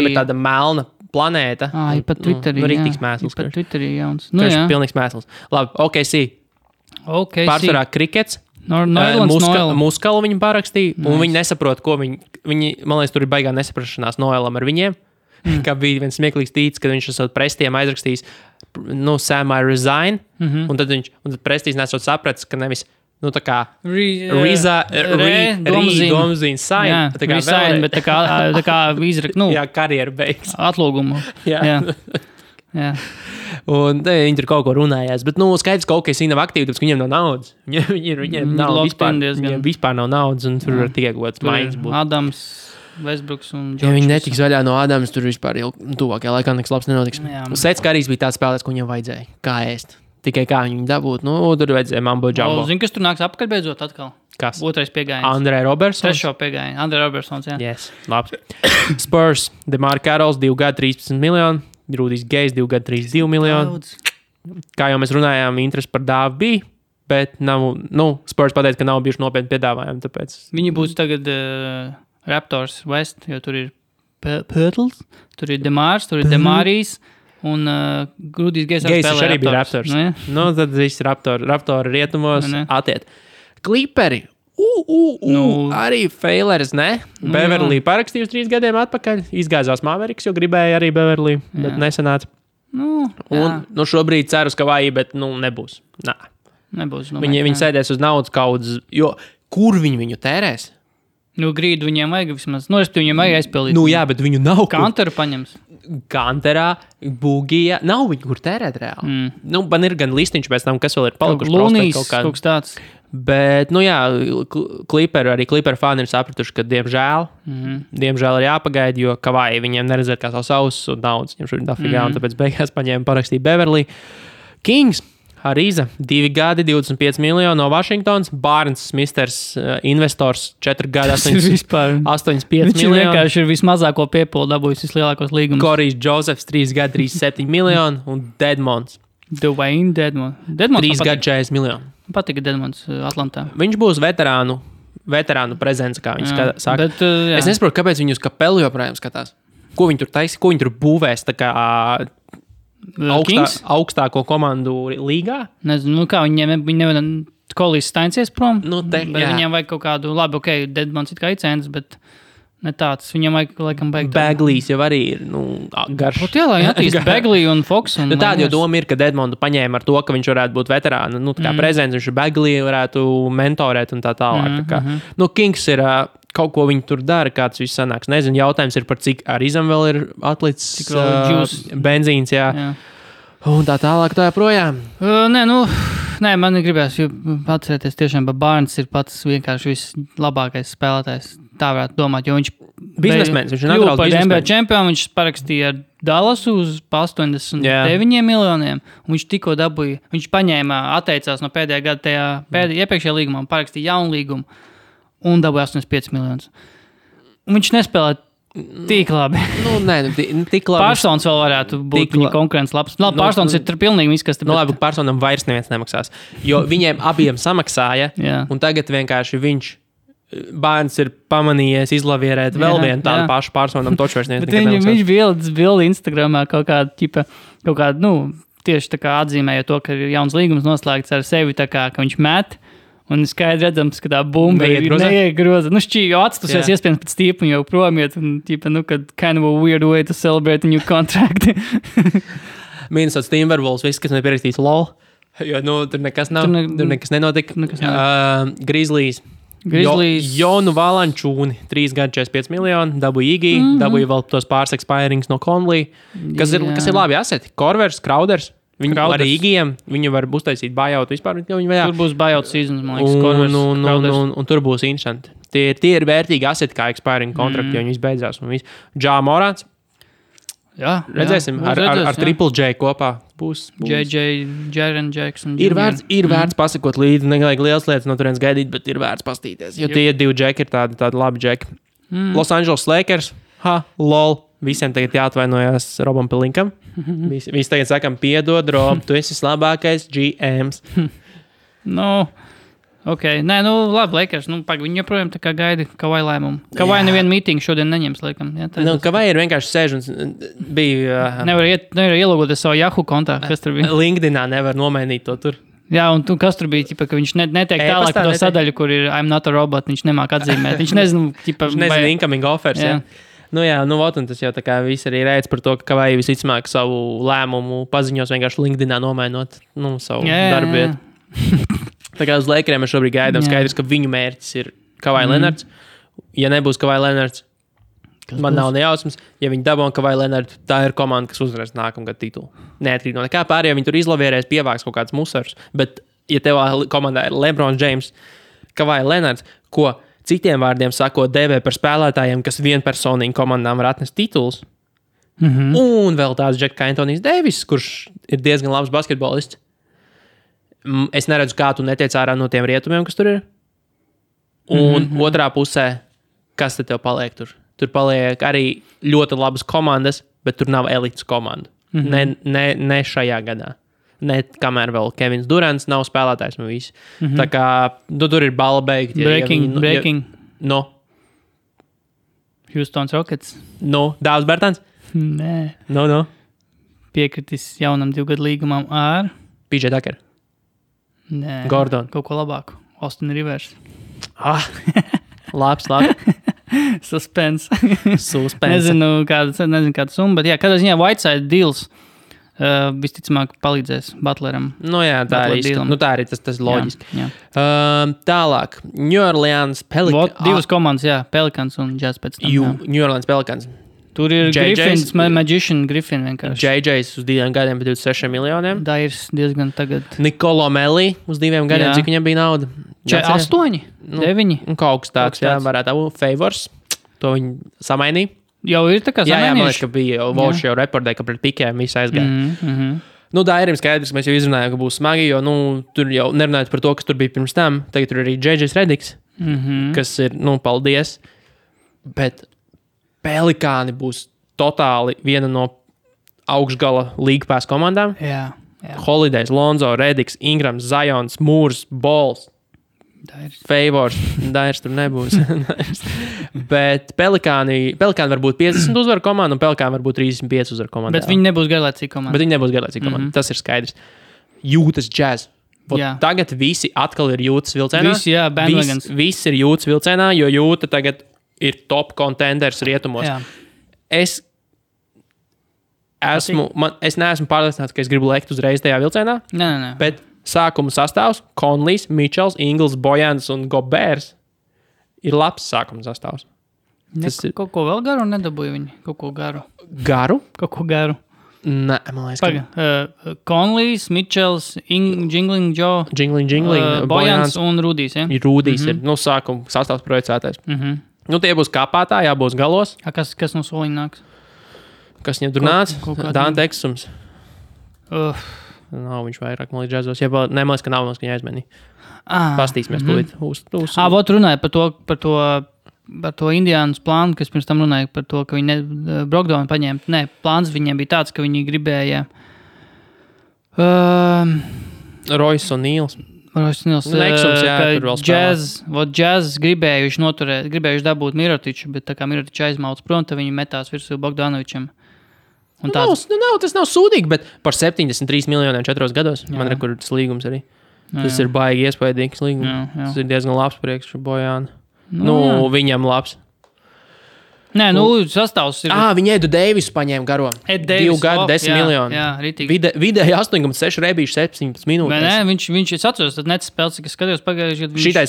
ir tāda melna planēta. Ir pat Twitterī. Rīktīgs mēsls. Ir pat Twitterī jauns. Pilnīgs mēsls. Labi, OKC. Pārsvarā krikets. Muskalu viņi parakstīja, un viņi nesaprot, ko viņi, man liekas, tur ir baigā nesaprašanās Noelam ar viņiem. Kā bija viens smieklīgs tīts, kad viņš esot prestiem aizrakstījis, Sam, I resign, un tad prestīts nesot sapratis, ka nevis, tā kā domzīn sign, resign, bet tā kā izrakt, jā, karjeru beigas. Atlūgumu. Jā. Un viņi tur kaut ko runājās, bet, skaidrs, ka OKC nav aktīvi, tāpēc, ka viņiem nav naudas. Viņiem nav vispār nav naudas, un tur var tikai kaut kāds maiņas būt. Adams, Westbrooks un George. Ja viņi netiks vaļā no Adams, tur vispār jau tuvākajā laikā nekas labs nenotiks. Sets Karijs bija tāds spēlētājs, ko viņam vajadzēja. Kā ēst? Tikai kā viņu dabūt. Tur vajadzēja mambo jumbo. Zini, kas tur nāks apakaļ beidzot atkal? Kas? Otrais piegājiens. Andrei Robertsons? Trešo piegājienu. Andrei Robertsons, jā. Yes, labs. Spurs, DeMar Carrolls, 2 gadi 13 miljoni. Rudijs Gejs, 2 gadi 32 miljoni. Kā jau mēs runājām, interesi par Dāvu bija, bet nav, Spurs pateica, ka nav bijuši nopietni piedāvājumi, tāpēc. Viņi būs tagad Raptors West, jo tur ir Pirtls, tur ir Demārs, tur ir Demārijs un Rudijs Gejs arī bija Raptors. Tad viss Raptori rietumos atiet. Kliperi. Arī Faileris, ne? Beverly parakstījus 3 gadiem atpakaļ. Izgāzās Mavericks, jo gribēja arī Beverly, bet nesanāca. Un šobrīd ceru, ka vajag, bet nebūs. Nebūs. Viņi sēdēs uz naudas kaudzes, jo kur viņu tērēs? Grīdu viņiem vajag vismaz. Respektīvi, viņiem vajag aizpildīt. Jā, bet viņu nav. Kanteru paņems. Kanterā, Bugija. Nav viņu, kur tērēt reāli. Man ir gan listiņš pēc tam, kas vēl ir palikuši. Lunīs, kaut kas tāds. Bet, Clipper fani ir sapratuši, ka diemžēl ir jāpagaida, jo Kavai viņiem neredzēt kā savus ausus un naudas. Viņam šodien dafigā, un tāpēc beigās paņēma parakstīja Beverly. Kings. Ariza, 2 gadi, 25 miljoni no Washingtons. Barnes, misters, investors, 4 gadi, 85 miljoni. Viņš vienkārši ir vismazāko piepolu dabūjis vislielākos līgumus. Korijs Josephs, 3 gadi, 37 miljoni. Un Dedmonds. Dwayne Dedmonds. 3 gadi, 40 miljoni. Patika Dedmonds Atlantā. Viņš būs veterānu prezence, kā viņi saka. Bet, es nesaprotu, kāpēc viņi uz Kapelu joprojām skatās. Ko viņi tur taisa, ko viņi tur būvēs, tā kā... augstāko komandu līgā? Nezinu, kā viņi nevar Kolijs stainsies prom, bet viņiem vajag kaut kādu, labi, Dedmonds it kā icēns, bet ne tāds, viņam vajag, laikam, beigt. Baglīs jau arī ir, garš. Lai attīst Baglī un Fox. Tāda jau doma ir, ka Dedmondu paņēma ar to, ka viņš varētu būt veterāna, tā kā prezidents, viņš Baglī varētu mentorēt un tā tālāk. Kings ir... Kaut ko viņi tur dara, kāds viss sanāks. Nezinu, jautājums ir par cik Arizam vēl ir atlicis benzīns, jā. Un tā tālāk tā joprojām. Nē, man gribēs atcerēties tiešām, ka Barnes ir pats vienkārši vislabākais spēlētājs. Tā varētu domāt, jo viņš biznesmenis, viņš ir naturāls biznesmenis. NBA čempionu, viņš parakstīja ar Dallasu uz 89 miljoniem, un viņš tikko dabūja, viņš atteicās no pēdējā gada iepriekšējā līgumā un parakstīja jaunu līgumu. Un dabūja 85 miljonus. Un viņš nespēlē tik labi. Tik labi. Pārsons vēl varētu būt viņa konkurence labs. Pārsons ir pilnīgi viss, kas... Labi, Pārsonam vairs neviens nemaksās. Jo viņiem abiem samaksāja, un tagad vienkārši Barnes ir pamanījies izlavierēt vēl vienu tādu pašu Pārsonam toču vairs neviens nekad nemaksās. Viņš bildi Instagramā kaut kādu, tieši tā kā atzīmēja to, ka ir jauns līgums noslēgts ar sevi, tā kā, ka viņš met. Un skaidri redzams, ka tā bumba ir neiegroza. Jau atstusies iespējams pēc tīpa un jau promiet. Un kad kind of a weird way to celebrate a new contract. Minnesota Timberwolves, viss, kas nepierakstīts LOL. Jo, tur nekas nav. Tur nekas nenotika. Grizzlies Jonu Valančūni, 3 gadi 45 miljoni, dabūja Igī, dabūja vēl tos pāris expirings no Conley, kas ir labi aseti. Korvers, Krauders. Viņu arī Igiem, viņu var uztaisīt buyout vispār. Tur būs buyout seasons, man liekas, un tur būs interesanti. Tie ir vērtīgi aseti kā expiring kontrakti, jo viņi viss beidzās. Ja Morants. Jā, redzēsim, ar Triple J kopā būs. Jaren Jackson. Ir vērts pasakot līdzi, nevajag liels lietas no turienes gaidīt, bet ir vērts pastīties. Jo tie 2 džeki ir tādi labi džeki. Los Angeles Lakers, lol. Visiem tagad jāatvainojas Robam Pelinkam. Visi tagad sakam, piedod, Rob, tu esi labākais GMs. Nē, labi, Lakers. Viņi joprojām tā kā gaida Kawhi lēmumu. Kawhi nevienu mītingu šodien neņems, laikam. Kawhi ir vienkārši sēž un bija... Nevar ielūgoties savu Yahoo kontā, kas tur bija. LinkedInā nevar nomainīt to tur. Jā, un kas tur bija, ka viņš netiek tālāk to sadaļu, kur ir I'm not a robot, viņš nemāk atzīmēt. Viņš nezinu, incoming offers, jā. Un tas jau tā kā viss arī reic par to, ka Kawhi visticamāk savu lēmumu paziņos vienkārši LinkedInā nomainot savu darbvietu. Tā kā uz Lakeriem mēs šobrīd gaidām skaidrs, ka viņu mērķis ir Kawhi Leonards. Ja nebūs Kawhi Leonards, man nav nejausmas. Ja viņi dabūna Kawhi Leonards, tā ir komanda, kas uzvarēs nākamgad titulu. Neatkarīgi no nekā pārējā, viņi tur izlavierēs, pievāks kaut kāds musars. Bet, ja tev komandā ir LeBron James, Kawhi Leonards, ko citiem vārdiem sakot, dēvē par spēlētājiem, kas vienpersonīgi komandām var atnest titulus. Un vēl tāds Džeks kā Antonijs Deivis, kurš ir diezgan labs basketbolists. Es neredzu, kā tu netiec ārā no tiem rietumiem, kas tur ir. Un otrā pusē, kas tad tev paliek tur? Tur paliek arī ļoti labas komandas, bet tur nav elites komanda. Ne šajā gadā. Ne kamēr vēl Kevins Durants nav spēlētājs no visi. Tā kā tur ir bala beigti. Breaking. Houston Rockets. Dāvs Bertans? Nē. Piekritis jaunam 2 gadu līgumam ar PJ Tucker. Nē. Gordon. Kaut ko labāku. Austin Rivers. Labs. Suspense. Nezinu kādu summu, bet kādā ziņā Whiteside deals visticamāk palīdzēs Butleram. Tā arī tas loģiski. Jā. Tālāk. New Orleans Pelicans. 2 komandas, Pelicans un Jazz pēc tam. New Orleans Pelicans. Tur ir Griffins, Magician Griffin vienkārši. JJ's uz 2 gadiem par 26 miljoniem. Dairs diezgan tagad. Nicolo Melli uz 2 gadiem, cik viņam bija nauda? 8, 9. Un kaut kas tāds, varētu būt Favors. To viņi samainīja. Jau ir tā kā samainījuši. Jā, man liekas, ka bija Volš jau reportēja, ka pret Pikēm viss aizgāja. Dairim skaidrs, ka mēs jau izrunājām, ka būs smagi, jo tur jau nerunājot par to, kas tur bija pirms tam. Tagad tur arī JJ's Rediks, kas ir, paldies. Bet Pelikāni būs totāli viena no augšgala League Pass komandām. Jā. Holidays, Lonzo, Rediks, Ingrams, Zions, Mūrs, Balls, Favors. Dairs tur nebūs. Bet Pelikāni var būt 50 uzvaru komanda un Pelikāni var būt 35 uzvaru komanda. Bet viņi nebūs garlaicīgi komanda. Tas ir skaidrs. Jūtas Jazz. Tagad visi atkal ir Jūtas vilcienā. Visi ir Jūtas vilcienā, jo Jūta tagad ir top contenders rietumos. Jā. Es neesmu pārliecināts, ka es gribu lekt uzreiz tajā vilcienā. Nē. Bet sākuma sastāvs Conleys, Mitchells, Ingles, Bojans un Gobers ir labs sākuma sastāvs. Kaut ko vēl garu nedabūja viņi? Kaut ko garu? Garu? Kaut ko garu. Nē, man liekas. Conleys, Mitchells, Jingling Joe, Bojans un Rudijs. Ja? Rudijs ir sākuma sastāvs projicētais. Tie būs kāpātā, jābūs galos. Kas no soliņa nāks? Kas viņam tur nāca? Dante Eksums. Nav viņš vairāk, man liekas, džazos. Nemaz, ka nav, ka viņa aizmenīja. Pastīsimies tūlīt. Vot runāja par to Indiānas plānu, kas pirms tam runāja par to, ka viņi Brogdonu paņēma. Nē, plāns viņiem bija tāds, ka viņi gribēja Royce un Nīls. Jazz gribējuši dabūt Mirotiču, bet tā kā Mirotiču aizmauc prom, tad viņi metās virsū Bogdanovičam. Tas nav sūdīgi, bet par 73 miljoniem 4 gados. Man ir tas līgums arī. Tas ir baigi iespaidīgs līgums. Tas ir diezgan labs priekš Bojāna. Viņam labs. Nē, sastāvs ir. Viņi Edu Deivisu paņēma garo. 2 gadu, 10 miljoni. Jā, ritīgi. Vidēji 8,6 rebīši 17 minūtes. Nē, viņš es atceros, tad nec spēles, kas skatījos pagājuši gadu. Šito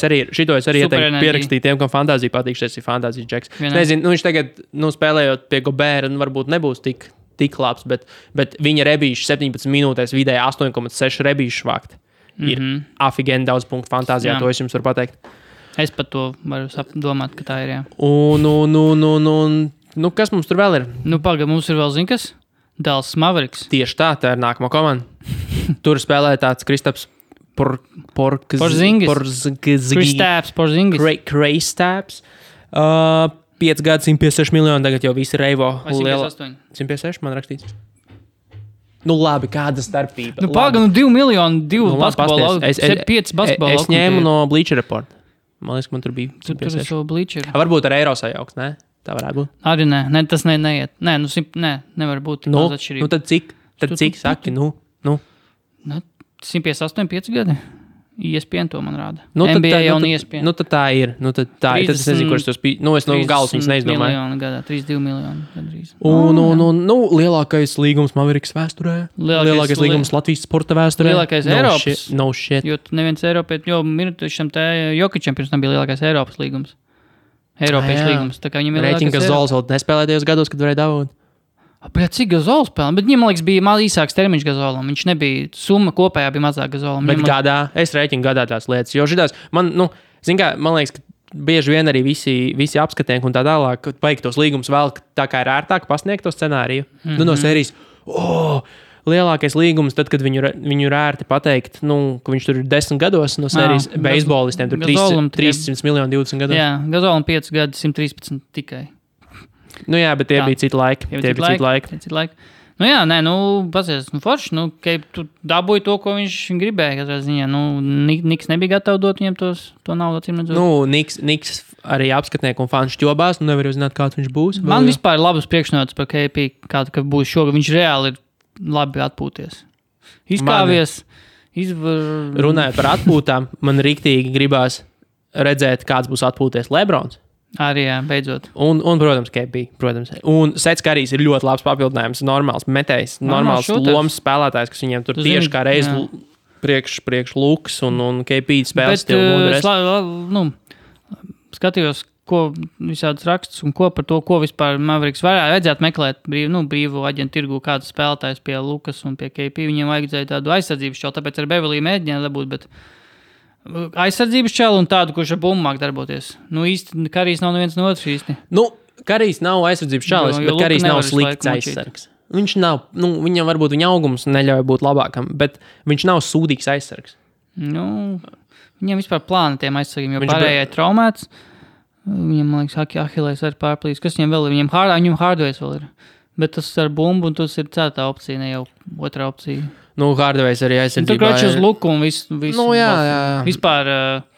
es arī ieteiktu pierakstīt tiem, kam fantāzija patīk, šis ir fantāzija džeks. Nezinu, viņš tagad, spēlējot pie Gobēra, varbūt nebūs tik labs, bet viņa rebīši 17 minūtēs vidēji 8,6 rebīši vākt. Ir afigēni daudz punktu fantāzijā, to es jums varu pateikt. Es pat to varu domāt, ka tā ir, jā. Kas mums tur vēl ir? Mums ir vēl, zin kas? Dallas Mavericks. Tieši tā ir nākamā komanda. Tur spēlē tāds Kristaps Porzingis. Kristaps. 5 gadu, 156 miljoni, tagad jau visi reivo. 158. 156, man rakstīts. Labi, kāda starpība? 2 miljoni, 2 basketbola, 5 basketbola. Es ņēmu no Bleacher Report. Man liekas, man tur bija. Tur ir šo Bleacher. Varbūt ar eiro sajauks, ne? Tā varētu būt. Arī nē, tas neiet. Nē, nevar būt daudz atšķirību. Tad cik saki, 158, 5 gadi. ESPN to man rāda. NBA jau un ESPN. Tad tā ir. Tad es nezinu, kurš tos bija. Es no galvas viņas neizdomāju. 32 miljoni gandrīz. Lielākais līgums Mavericks vēsturē. Lielākais līgums Latvijas sporta vēsturē. Lielākais Eiropas. No shit. Jo neviens Eiropietis, jo Mirtišam te Jokičam pirms tam bija lielākais Eiropas līgums. Eiropiešu līgums. Tā kā viņam ir lielākais Eiropas. Reiķinga Zols vēl nespēlēja tajos gados, kad varēja dabūt. Cik Gazols spēlē? Bet viņam, man liekas, bija īsāks termiņš Gazolam. Viņš nebija, summa kopējā bija mazāk Gazolam. Bet gadā, es rēķinu gadā tās lietas. Jo šitās, man liekas, ka bieži vien arī visi apskatieki un tā tālāk, kad vajag tos līgumus vēl tā kā ir ērtāk pasniegt to scenāriju. No sērijas, lielākais līgums, tad, kad viņu ir ērti pateikt, ka viņš tur ir 10 gados no sērijas beisbolistiem, tur 300 miljoni 20 gados. Jā, Gazolam 5 gadi, 113 tikai. Jā, bet tie bija citi laiki. Pasies, forši, tu dabūji to, ko viņš gribēja, katrā ziņā. Niks nebija gatavs dot viņam to naudu, acīm redzot. Niks arī apskatnieki un fani šķobās, nevar uzzināt, kāds viņš būs. Man vispār ir labas priekšnotas par KP, ka būs šogad. Viņš reāli ir labi atpūties. Izkāvies. Runājot par atpūtām, man riktīgi gribās redzēt, kāds būs atpūties Lebrons. Arī, jā, beidzot. Un protams, KP, protams. Un Sets Karijs ir ļoti labs papildinājums, normāls metējs, normāls lomas spēlētājs, kas viņiem tur tieši kā reiz priekš Lukas un KP spēles stilu. Skatījos, ko visādas rakstus un ko par to, ko vispār Mavericks vajadzētu meklēt brīvu aģentu tirgu, kāds spēlētājs pie Lukas un pie KP. Viņiem vajadzēja tādu aizsardzības šķelu, tāpēc ar Beverlī mēģināja dabūt, bet aizsardzības čelu un tādu, kurš ar bumbu māk darboties. Īsti Karijs nav neviens no otrs īsti. Karijs nav aizsardzības čelis, bet Karijs nav slikts aizsargs. Viņš nav, viņam varbūt viņa augums neļauj būt labākam, bet viņš nav sūdīgs aizsargs. Viņam vispār plāna tiem aizsargiem, jo pārējai traumēts. Viņam, man liekas, Ahilēs arī pārplīs. Kas viņam vēl ir? Viņam Hardways vēl ir. Bet tas ar bumbu un tas ir cētā opcija, ne jau otrā opcija. Hardways arī aizsardzībā. Tur kraču uz luku un viss. Jā. Vispār.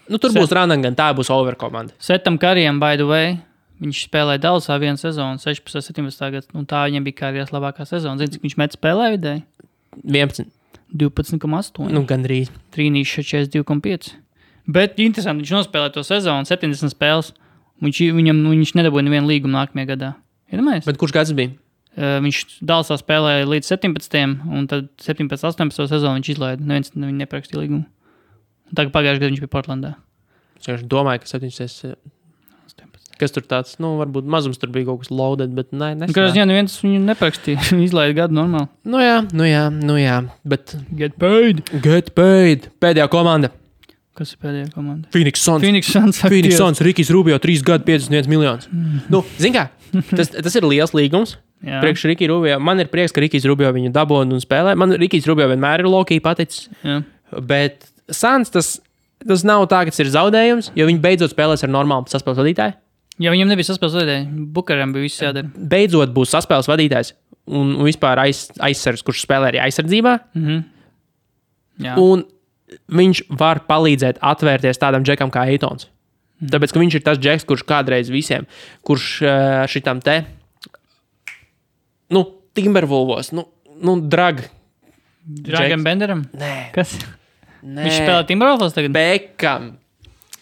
Tur būs Randangan, tā būs over komanda. Setam Karijam, by the way, viņš spēlēja Dallasā vienu sezonu, 16, 17 gads, un tā viņam bija karjeras labākā sezona. Zini, cik viņš met spēlē vidēji? 11. 12,8. Gandrīz. Trīnīša 42,5. Bet interesanti, viņš nospēlēja to sezonu, 70 spēles. Viņš nedabūja nevienu līgumu nākamajā gadā. Iedomājies? Bet kurš gads bija? Viņš Dallasā spēlēja līdz 17. un tad 17. 18. sezonu viņš izlaida. Neviens viņu neprakstīja līgumu. Tagad pagājušajā gadā viņš bija Portlandā. Es domāju, ka 17. Kas tur tāds, varbūt mazums tur bija kaut kas loaded, bet nesanāk. Kādā neviens viņu neprakstīja. Izlaida gadu normāli. Nu jā. Bet Get paid. Pēdējā komanda. Kas ir pēdējā komanda? Phoenix Suns, Rikijs Rubio, 3 gadu, 51 miljonus. Zin kā, tas ir liels līgums. Priekš Rikija Rubio. Man ir prieks, ka Rikijs Rubio viņu dabūna un spēlē. Man Rikijs Rubio vienmēr ir low-key paticis. Jā. Bet Suns, tas nav tā, ka tas ir zaudējums, jo viņi beidzot spēlēs ar normālu saspēles vadītāju. Ja viņam nebija saspēles vadītāji, Bukaram bija viss jādara. Beidzot būs saspēles vadītājs un vispār aizsargs, kurš spēlē arī aizsardzībā. Jā. Un viņš var palīdzēt atvērties tādam džekam kā Eitons. Tāpēc, ka viņš ir tas džeks, kurš kādreiz visiem, kurš šitam te, Timberwolvos, Dragam Benderam? Nē. Kas? Nē. Viņš spēlē Timberwolvos tagad? Bekam.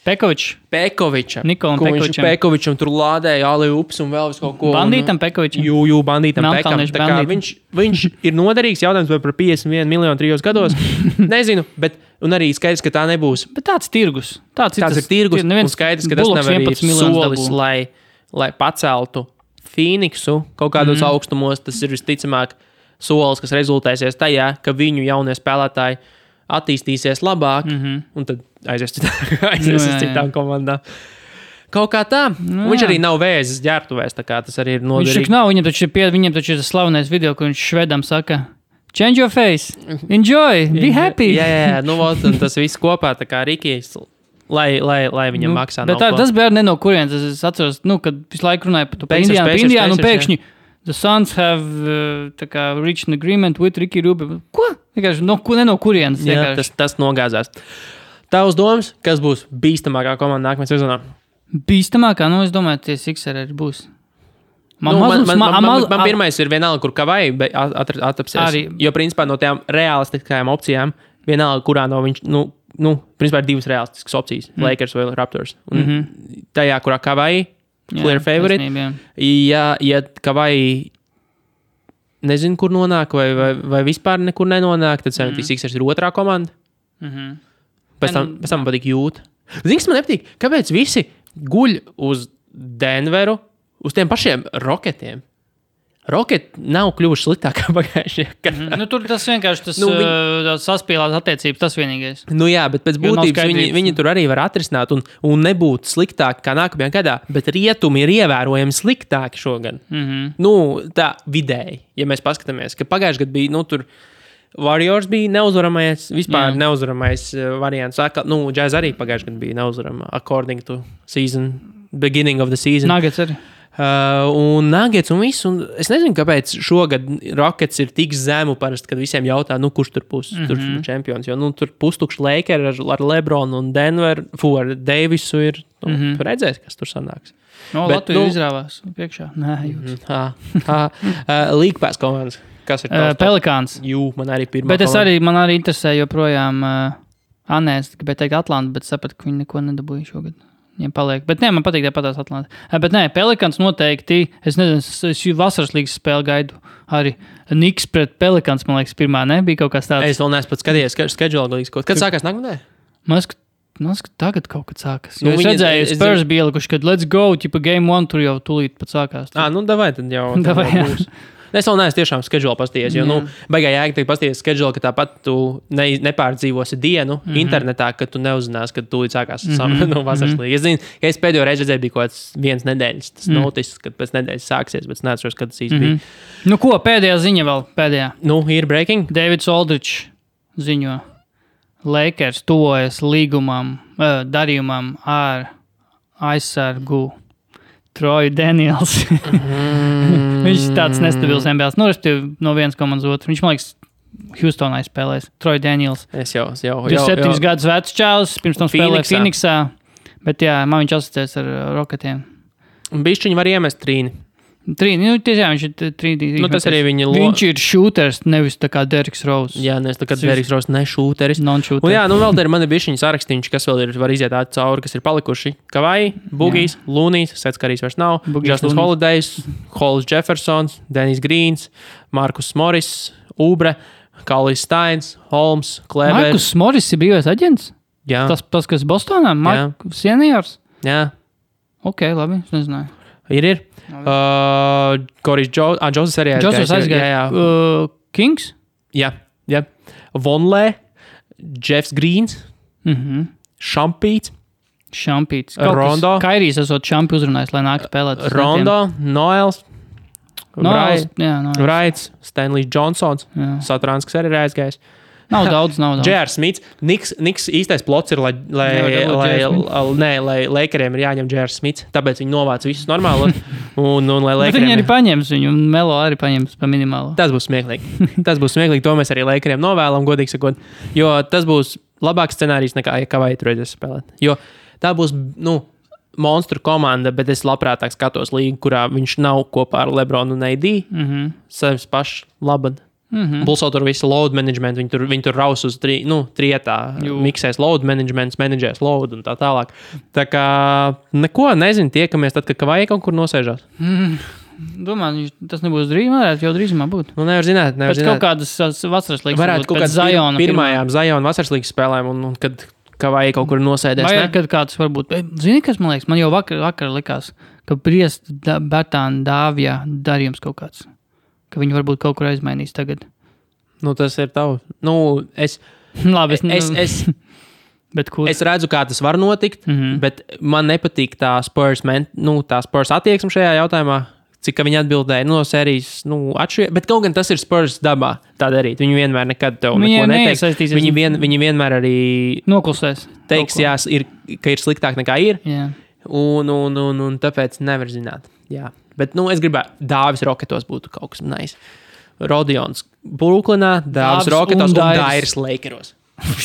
Pekovičam. Nikolam Pekovičam. Pekovičam tur lādēja Aliups un vēl vis kaut ko. Bandītam Pekovičam. Jū, bandītam Pekam. Tā kā viņš ir noderīgs, jautājums vai par 51 miljonu 3 gados. Nezinu, bet, un arī skaidrs, ka tā nebūs. Bet tāds tirgus. Tāds ir tirgus, un skaidrs, ka tas nav arī solis, lai paceltu Phoenixu kaut kādos augstumos. Tas ir visticamāk solis, kas rezultēsies tajā, ka viņu jaunie spēlētāji attīstīsies labāk, un tad aizies citām komandām. Kaut kā tā. Viņš arī nav vēzis ģērbtuvēs, tā kā tas arī ir noderīgi. Viņš nav, viņam taču ir tas slavenais video, kur viņš švedam saka, change your face, enjoy, be happy. Jā, un tas viss kopā, tā kā Rikijs, lai viņam maksā. Bet tas bija ne no kurienes, es atceros, kad visu laiku runāju par Indiānu, un pēkšņi the Suns have reached an agreement with Ricky Rubio. Ko? Ne no kurienes. Jā, tas nogāzās. Tavs domas, kas būs bīstamākā komanda nākamajā sezonā? Bīstamākā? Es domāju, tie Sixeri arī būs. Man pirmais ir vienalga, kur Kavai atapsies. Jo, principā, no tām realistiskajām opcijām, vienalga, kurā no viņš, principā ir 2 realistiskas opcijas. Lakers vai Raptors. Un tajā, kurā Kavai clear favorite. Ja Kavai nezinu, kur nonāk, vai vispār nekur nenonāk, tad 76ers ir otrā komanda. Pēc tam patīk Jūta. Zini, kas man nepatīk? Kāpēc visi guļ uz Denveru, uz tiem pašiem Rocketiem? Rocketi nav kļuvuši sliktākā pagājušajā. Tur tas vienkārši saspīlās attiecības, tas vienīgais. Jā, bet pēc būtības viņi tur arī var atrisināt un nebūt sliktāki kā nākamajā gadā, bet rietumi ir ievērojami sliktāki šogad. Tā vidēji, ja mēs paskatāmies, ka pagājušajā gadā bija, tur Warriors bija neuzvaramais, vispār neuzvaramais variants. Jazz arī pagājušajā gadā bija neuzvarama according to season, beginning of the season. Nuggets arī. Un Nuggets un viss, un es nezinu, kāpēc šogad Rockets ir tik zemu parasti, kad visiem jautā, kurš tur būs čempions, jo tur pustukši Lakers ar Lebronu un Denver, ar Davisu ir, tu redzēsi, kas tur sanāks. Latvija izrāvās priekšā. Nē, League Pass komandas. Kas ir Pelikāns. Man arī pirmā bet man arī interesē joprojām Anēs, gribēju teikt Atlanta, bet sapratu, ka viņi neko nedabūja šogad. Viņiem paliek. Bet man patīk patās Atlanta. Bet Pelikāns noteikti, es nezinu, es vasaras līgas spēli gaidu arī. Niks pret Pelikāns, man liekas, pirmā, ne? Bija kaut kas tāds. Es vēl neesmu pat skatījies schedule līgas. Kad sākās nākamnē? Man liekas, ka tagad kaut kad sākas. Jo es redzēju, Spurs bija ielikuši, kad let's go, game 1 tur jau tūlīt pat sākās. Davai tad jau. Būs. Es vēl neesmu tiešām schedule pastījies, jo, baigā jēga teikt pastījies schedule, ka tāpat tu nepārdzīvosi dienu internetā, kad tu neuzinās, kad tūlīt sākās vasaras līga. Es zinu, ka es pēdējo reizi redzēju, bija kaut kāds 1 nedēļas, tas noticis, kad pēc nedēļas sāksies, bet es neatceros, kad tas īsti bija. Ko, pēdējā ziņa vēl, pēdējā? Ir breaking. Davids Aldridge ziņo. Lakers tuvojas darījumam ar aizsargu Troy Daniels. Viņš ir tāds nestabils NBA. No vienas komandas otru. Viņš, man liekas, Houstonā spēlēs. Troy Daniels. Es jau. 27 gadus vecs čāls, pirms tam spēlēja Phoenixā. Bet man viņš asociēs ar Rocketiem. Bišķiņi var iemest trīni. Tiešām viņš ir trīnīgi. Tas arī viņš ir šūters, nevis tā kā Derriks Rose. Jā, nevis tā kā Derriks Rose, ne šūteris. Non-šūteris. Vēl te ir mani bišķiņi sarakstīņš, kas vēl var iziet cauri, kas ir palikuši. Kavai, Bugijs, Lunijs, Sets Karīs vairs nav, Justin Holidays, Hollis Jeffersons, Dennis Greens, Markus Morris, Ubre, Kalis Steins, Holmes, Kleber. Markus Morris ir brīvais aģents? Jā. Tas kas Bostonā? Seniors? Jā. Ok, labi, es nezināju. Ir. Koris Džozes arī aizgāja. Kings? Jā. Vonlē, Jeffs Greens, Šampīts, Rondo. Kairijs esot Šampi uzrunājis, lai nāk spēlēt. Rondo, Noels, Wrights, Stanley Johnsons, Satrāns, kas arī ir aizgājis. Nav daudz. J.R. Smits. Niks īstais plots ir, lai Lakeriem ir jāņem J.R. Smits, tāpēc viņi novāc visus normāli. Un lai Lakeriem... Viņi arī paņems viņu, un Melo arī paņems pa minimālo. Tas būs smieklīgi. To mēs arī Lakeriem novēlam, godīgi sakot. Jo tas būs labāks scenārijs nekā, ja Kavai tur redzēs spēlēt. Jo tā būs, monstru komanda, bet es labprātāk skatos līgu, kurā viņš nav kopā ar Lebronu un AD. Savs pašs labad. Bulso tur visu load management, viņi tur raus uz trietā, miksēs load management, menedžēs load un tā tālāk. Tā kā neko nezinu, tiekamies tad, kad Kavai kaut kur nosēžās. Domāju, tas nebūs varētu jau drīzumā būt. Nevar zināt. Pēc kaut kādas vasaras līgas. Varētu kaut kādas pirmajām Zajona vasaras līgas spēlēm un kad Kavai kaut kur nosēdēs. Vai kad kāds varbūt. Zini, kas man liekas? Man jau vakar likās, ka Briest Bertāna Dāvijā darījums kaut kāds. Ka viņi varbūt kaut kur aizmainīs tagad. Tas ir tavs. Labi, es redzu, kā tas var notikt, bet man nepatīk tā Spurs attieksme šajā jautājumā, cik viņi atbildēja no sērijas, bet kaut gan tas ir Spurs dabā tā darīt. Viņi vienmēr nekad tev neko neteiks. Viņi vienmēr arī noklusēs. Teiks, ka ir sliktāk nekā ir. Jā. Un tāpēc nevar zināt. Jā. Bet, es gribētu, Dāvis Roketos būtu kaut kas nice. Rodions Brooklynā, Dāvis Roketos un Dairis Lakeros.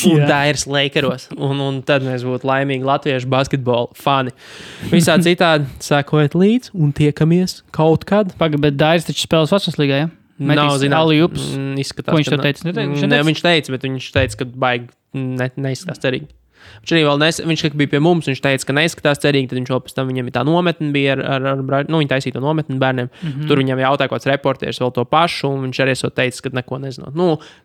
Dairis Lakeros. Un tad mēs būtu laimīgi latviešu basketbola fani. Visā citādi sekojiet līdz un tiekamies kaut kad. Bet Dairis taču spēlēs vasaras līgā, ja? Nav zināms. Ko viņš tev teica? Viņš teica, bet viņš teica, ka baigi neizskatās cerīgi. Viņš bija pie mums, viņš teica, ka neizskatās cerīgi, tad viņš vēl pēc tam viņam ir tā nometne bija viņi taisīja to nometni bērniem. Tur viņam jautāja kāds reportieris vēl to pašu, un viņš arī teica, ka neko nezinot.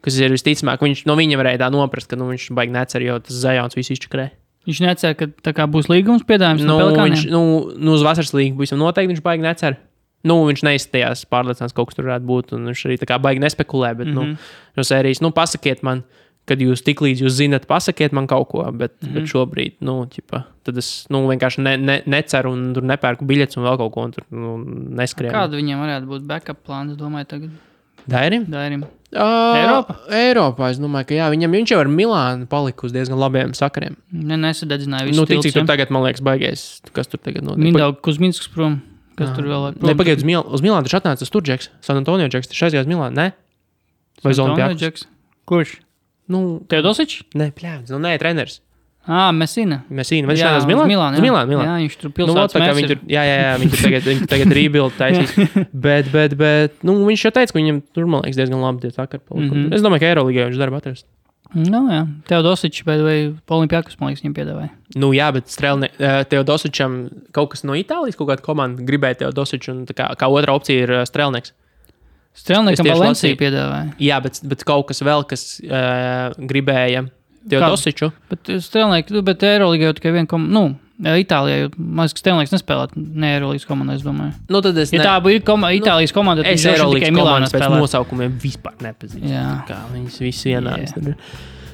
Kas ir visticamāk, viņš no viņa varēja tā noprast, ka viņš baigi necer, jo tas Zajons visu izčakrē. Viņš necer, ka tā kā būs līgums piedāvājums no Pelikāniem? Uz vasaras līgu visam noteikti viņš baigi necer. Viņš neizstājās pārliecināts, kaut kas tur varētu būt, un viņš arī tā kā baigi nespekulē, bet no sērijas, pasakiet man, kad jūs tik līdz jūs zinat, pasakiet man kaut ko, bet šobrīd, tad es vienkārši neceru un tur nepērku biļetes un vēl kaut ko, un tur neskrēju. Kādu viņiem varētu būt backup plāns, domāju, tagad? Dairim? Eiropā, es domāju, ka jā, viņš jau ar Milānu palika uz diezgan labiem sakariem. Nesadedzināja visu cik tur tagad, man liekas, baigais, kas tur tagad notiek. Mindaugs Kuzminskas prom, kas tur vēl ir prom. Pagaid, uz Milānu taču atnāca tas tur Džeks, San Antonio Džeks, taču aizgājās Milānu, ne? Vai Olimpiakos? Kurš? Teodosičs? Nē, treneris. Messina. Vai viņš nāc uz Milānu? Milānu. Jā, viņš tur pilsētas mērs ir. Viņi tagad rebuild taisīs. bet, viņš jau teica, ka viņam tur, man liekas, diezgan labi tie sakari. Es domāju, ka Eirolīgā viņš darba atrast. Jā. Teodosičs, vai Olimpiakos, man liekas, viņam piedāvāja. Jā, bet Teodosičam kaut kas no Itālijas, kaut kāda komanda gribēja Teodosiču, un kā otra opcija ir Strelnieks. Strelniekam Valencija piedāvāja. Jā, bet kaut kas vēl, kas gribēja Teodosiču. Bet Eirolīgā jau tikai viena Itālijā, jo maz, ka Strelnieks nespēlēt ne Eirolīgas komandā, es domāju. Tā ir Itālijas komanda, tad es Eirolīgas komandas pēc nosaukumiem vispār nepazīstu. Kā viņas visi vienādas.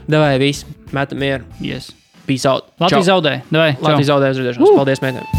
Davai, visi, metam mieru. Yes. Peace out. Latvijas zaudē. Latvijas zaudē, uz redzēšanos. Paldies, meitēm.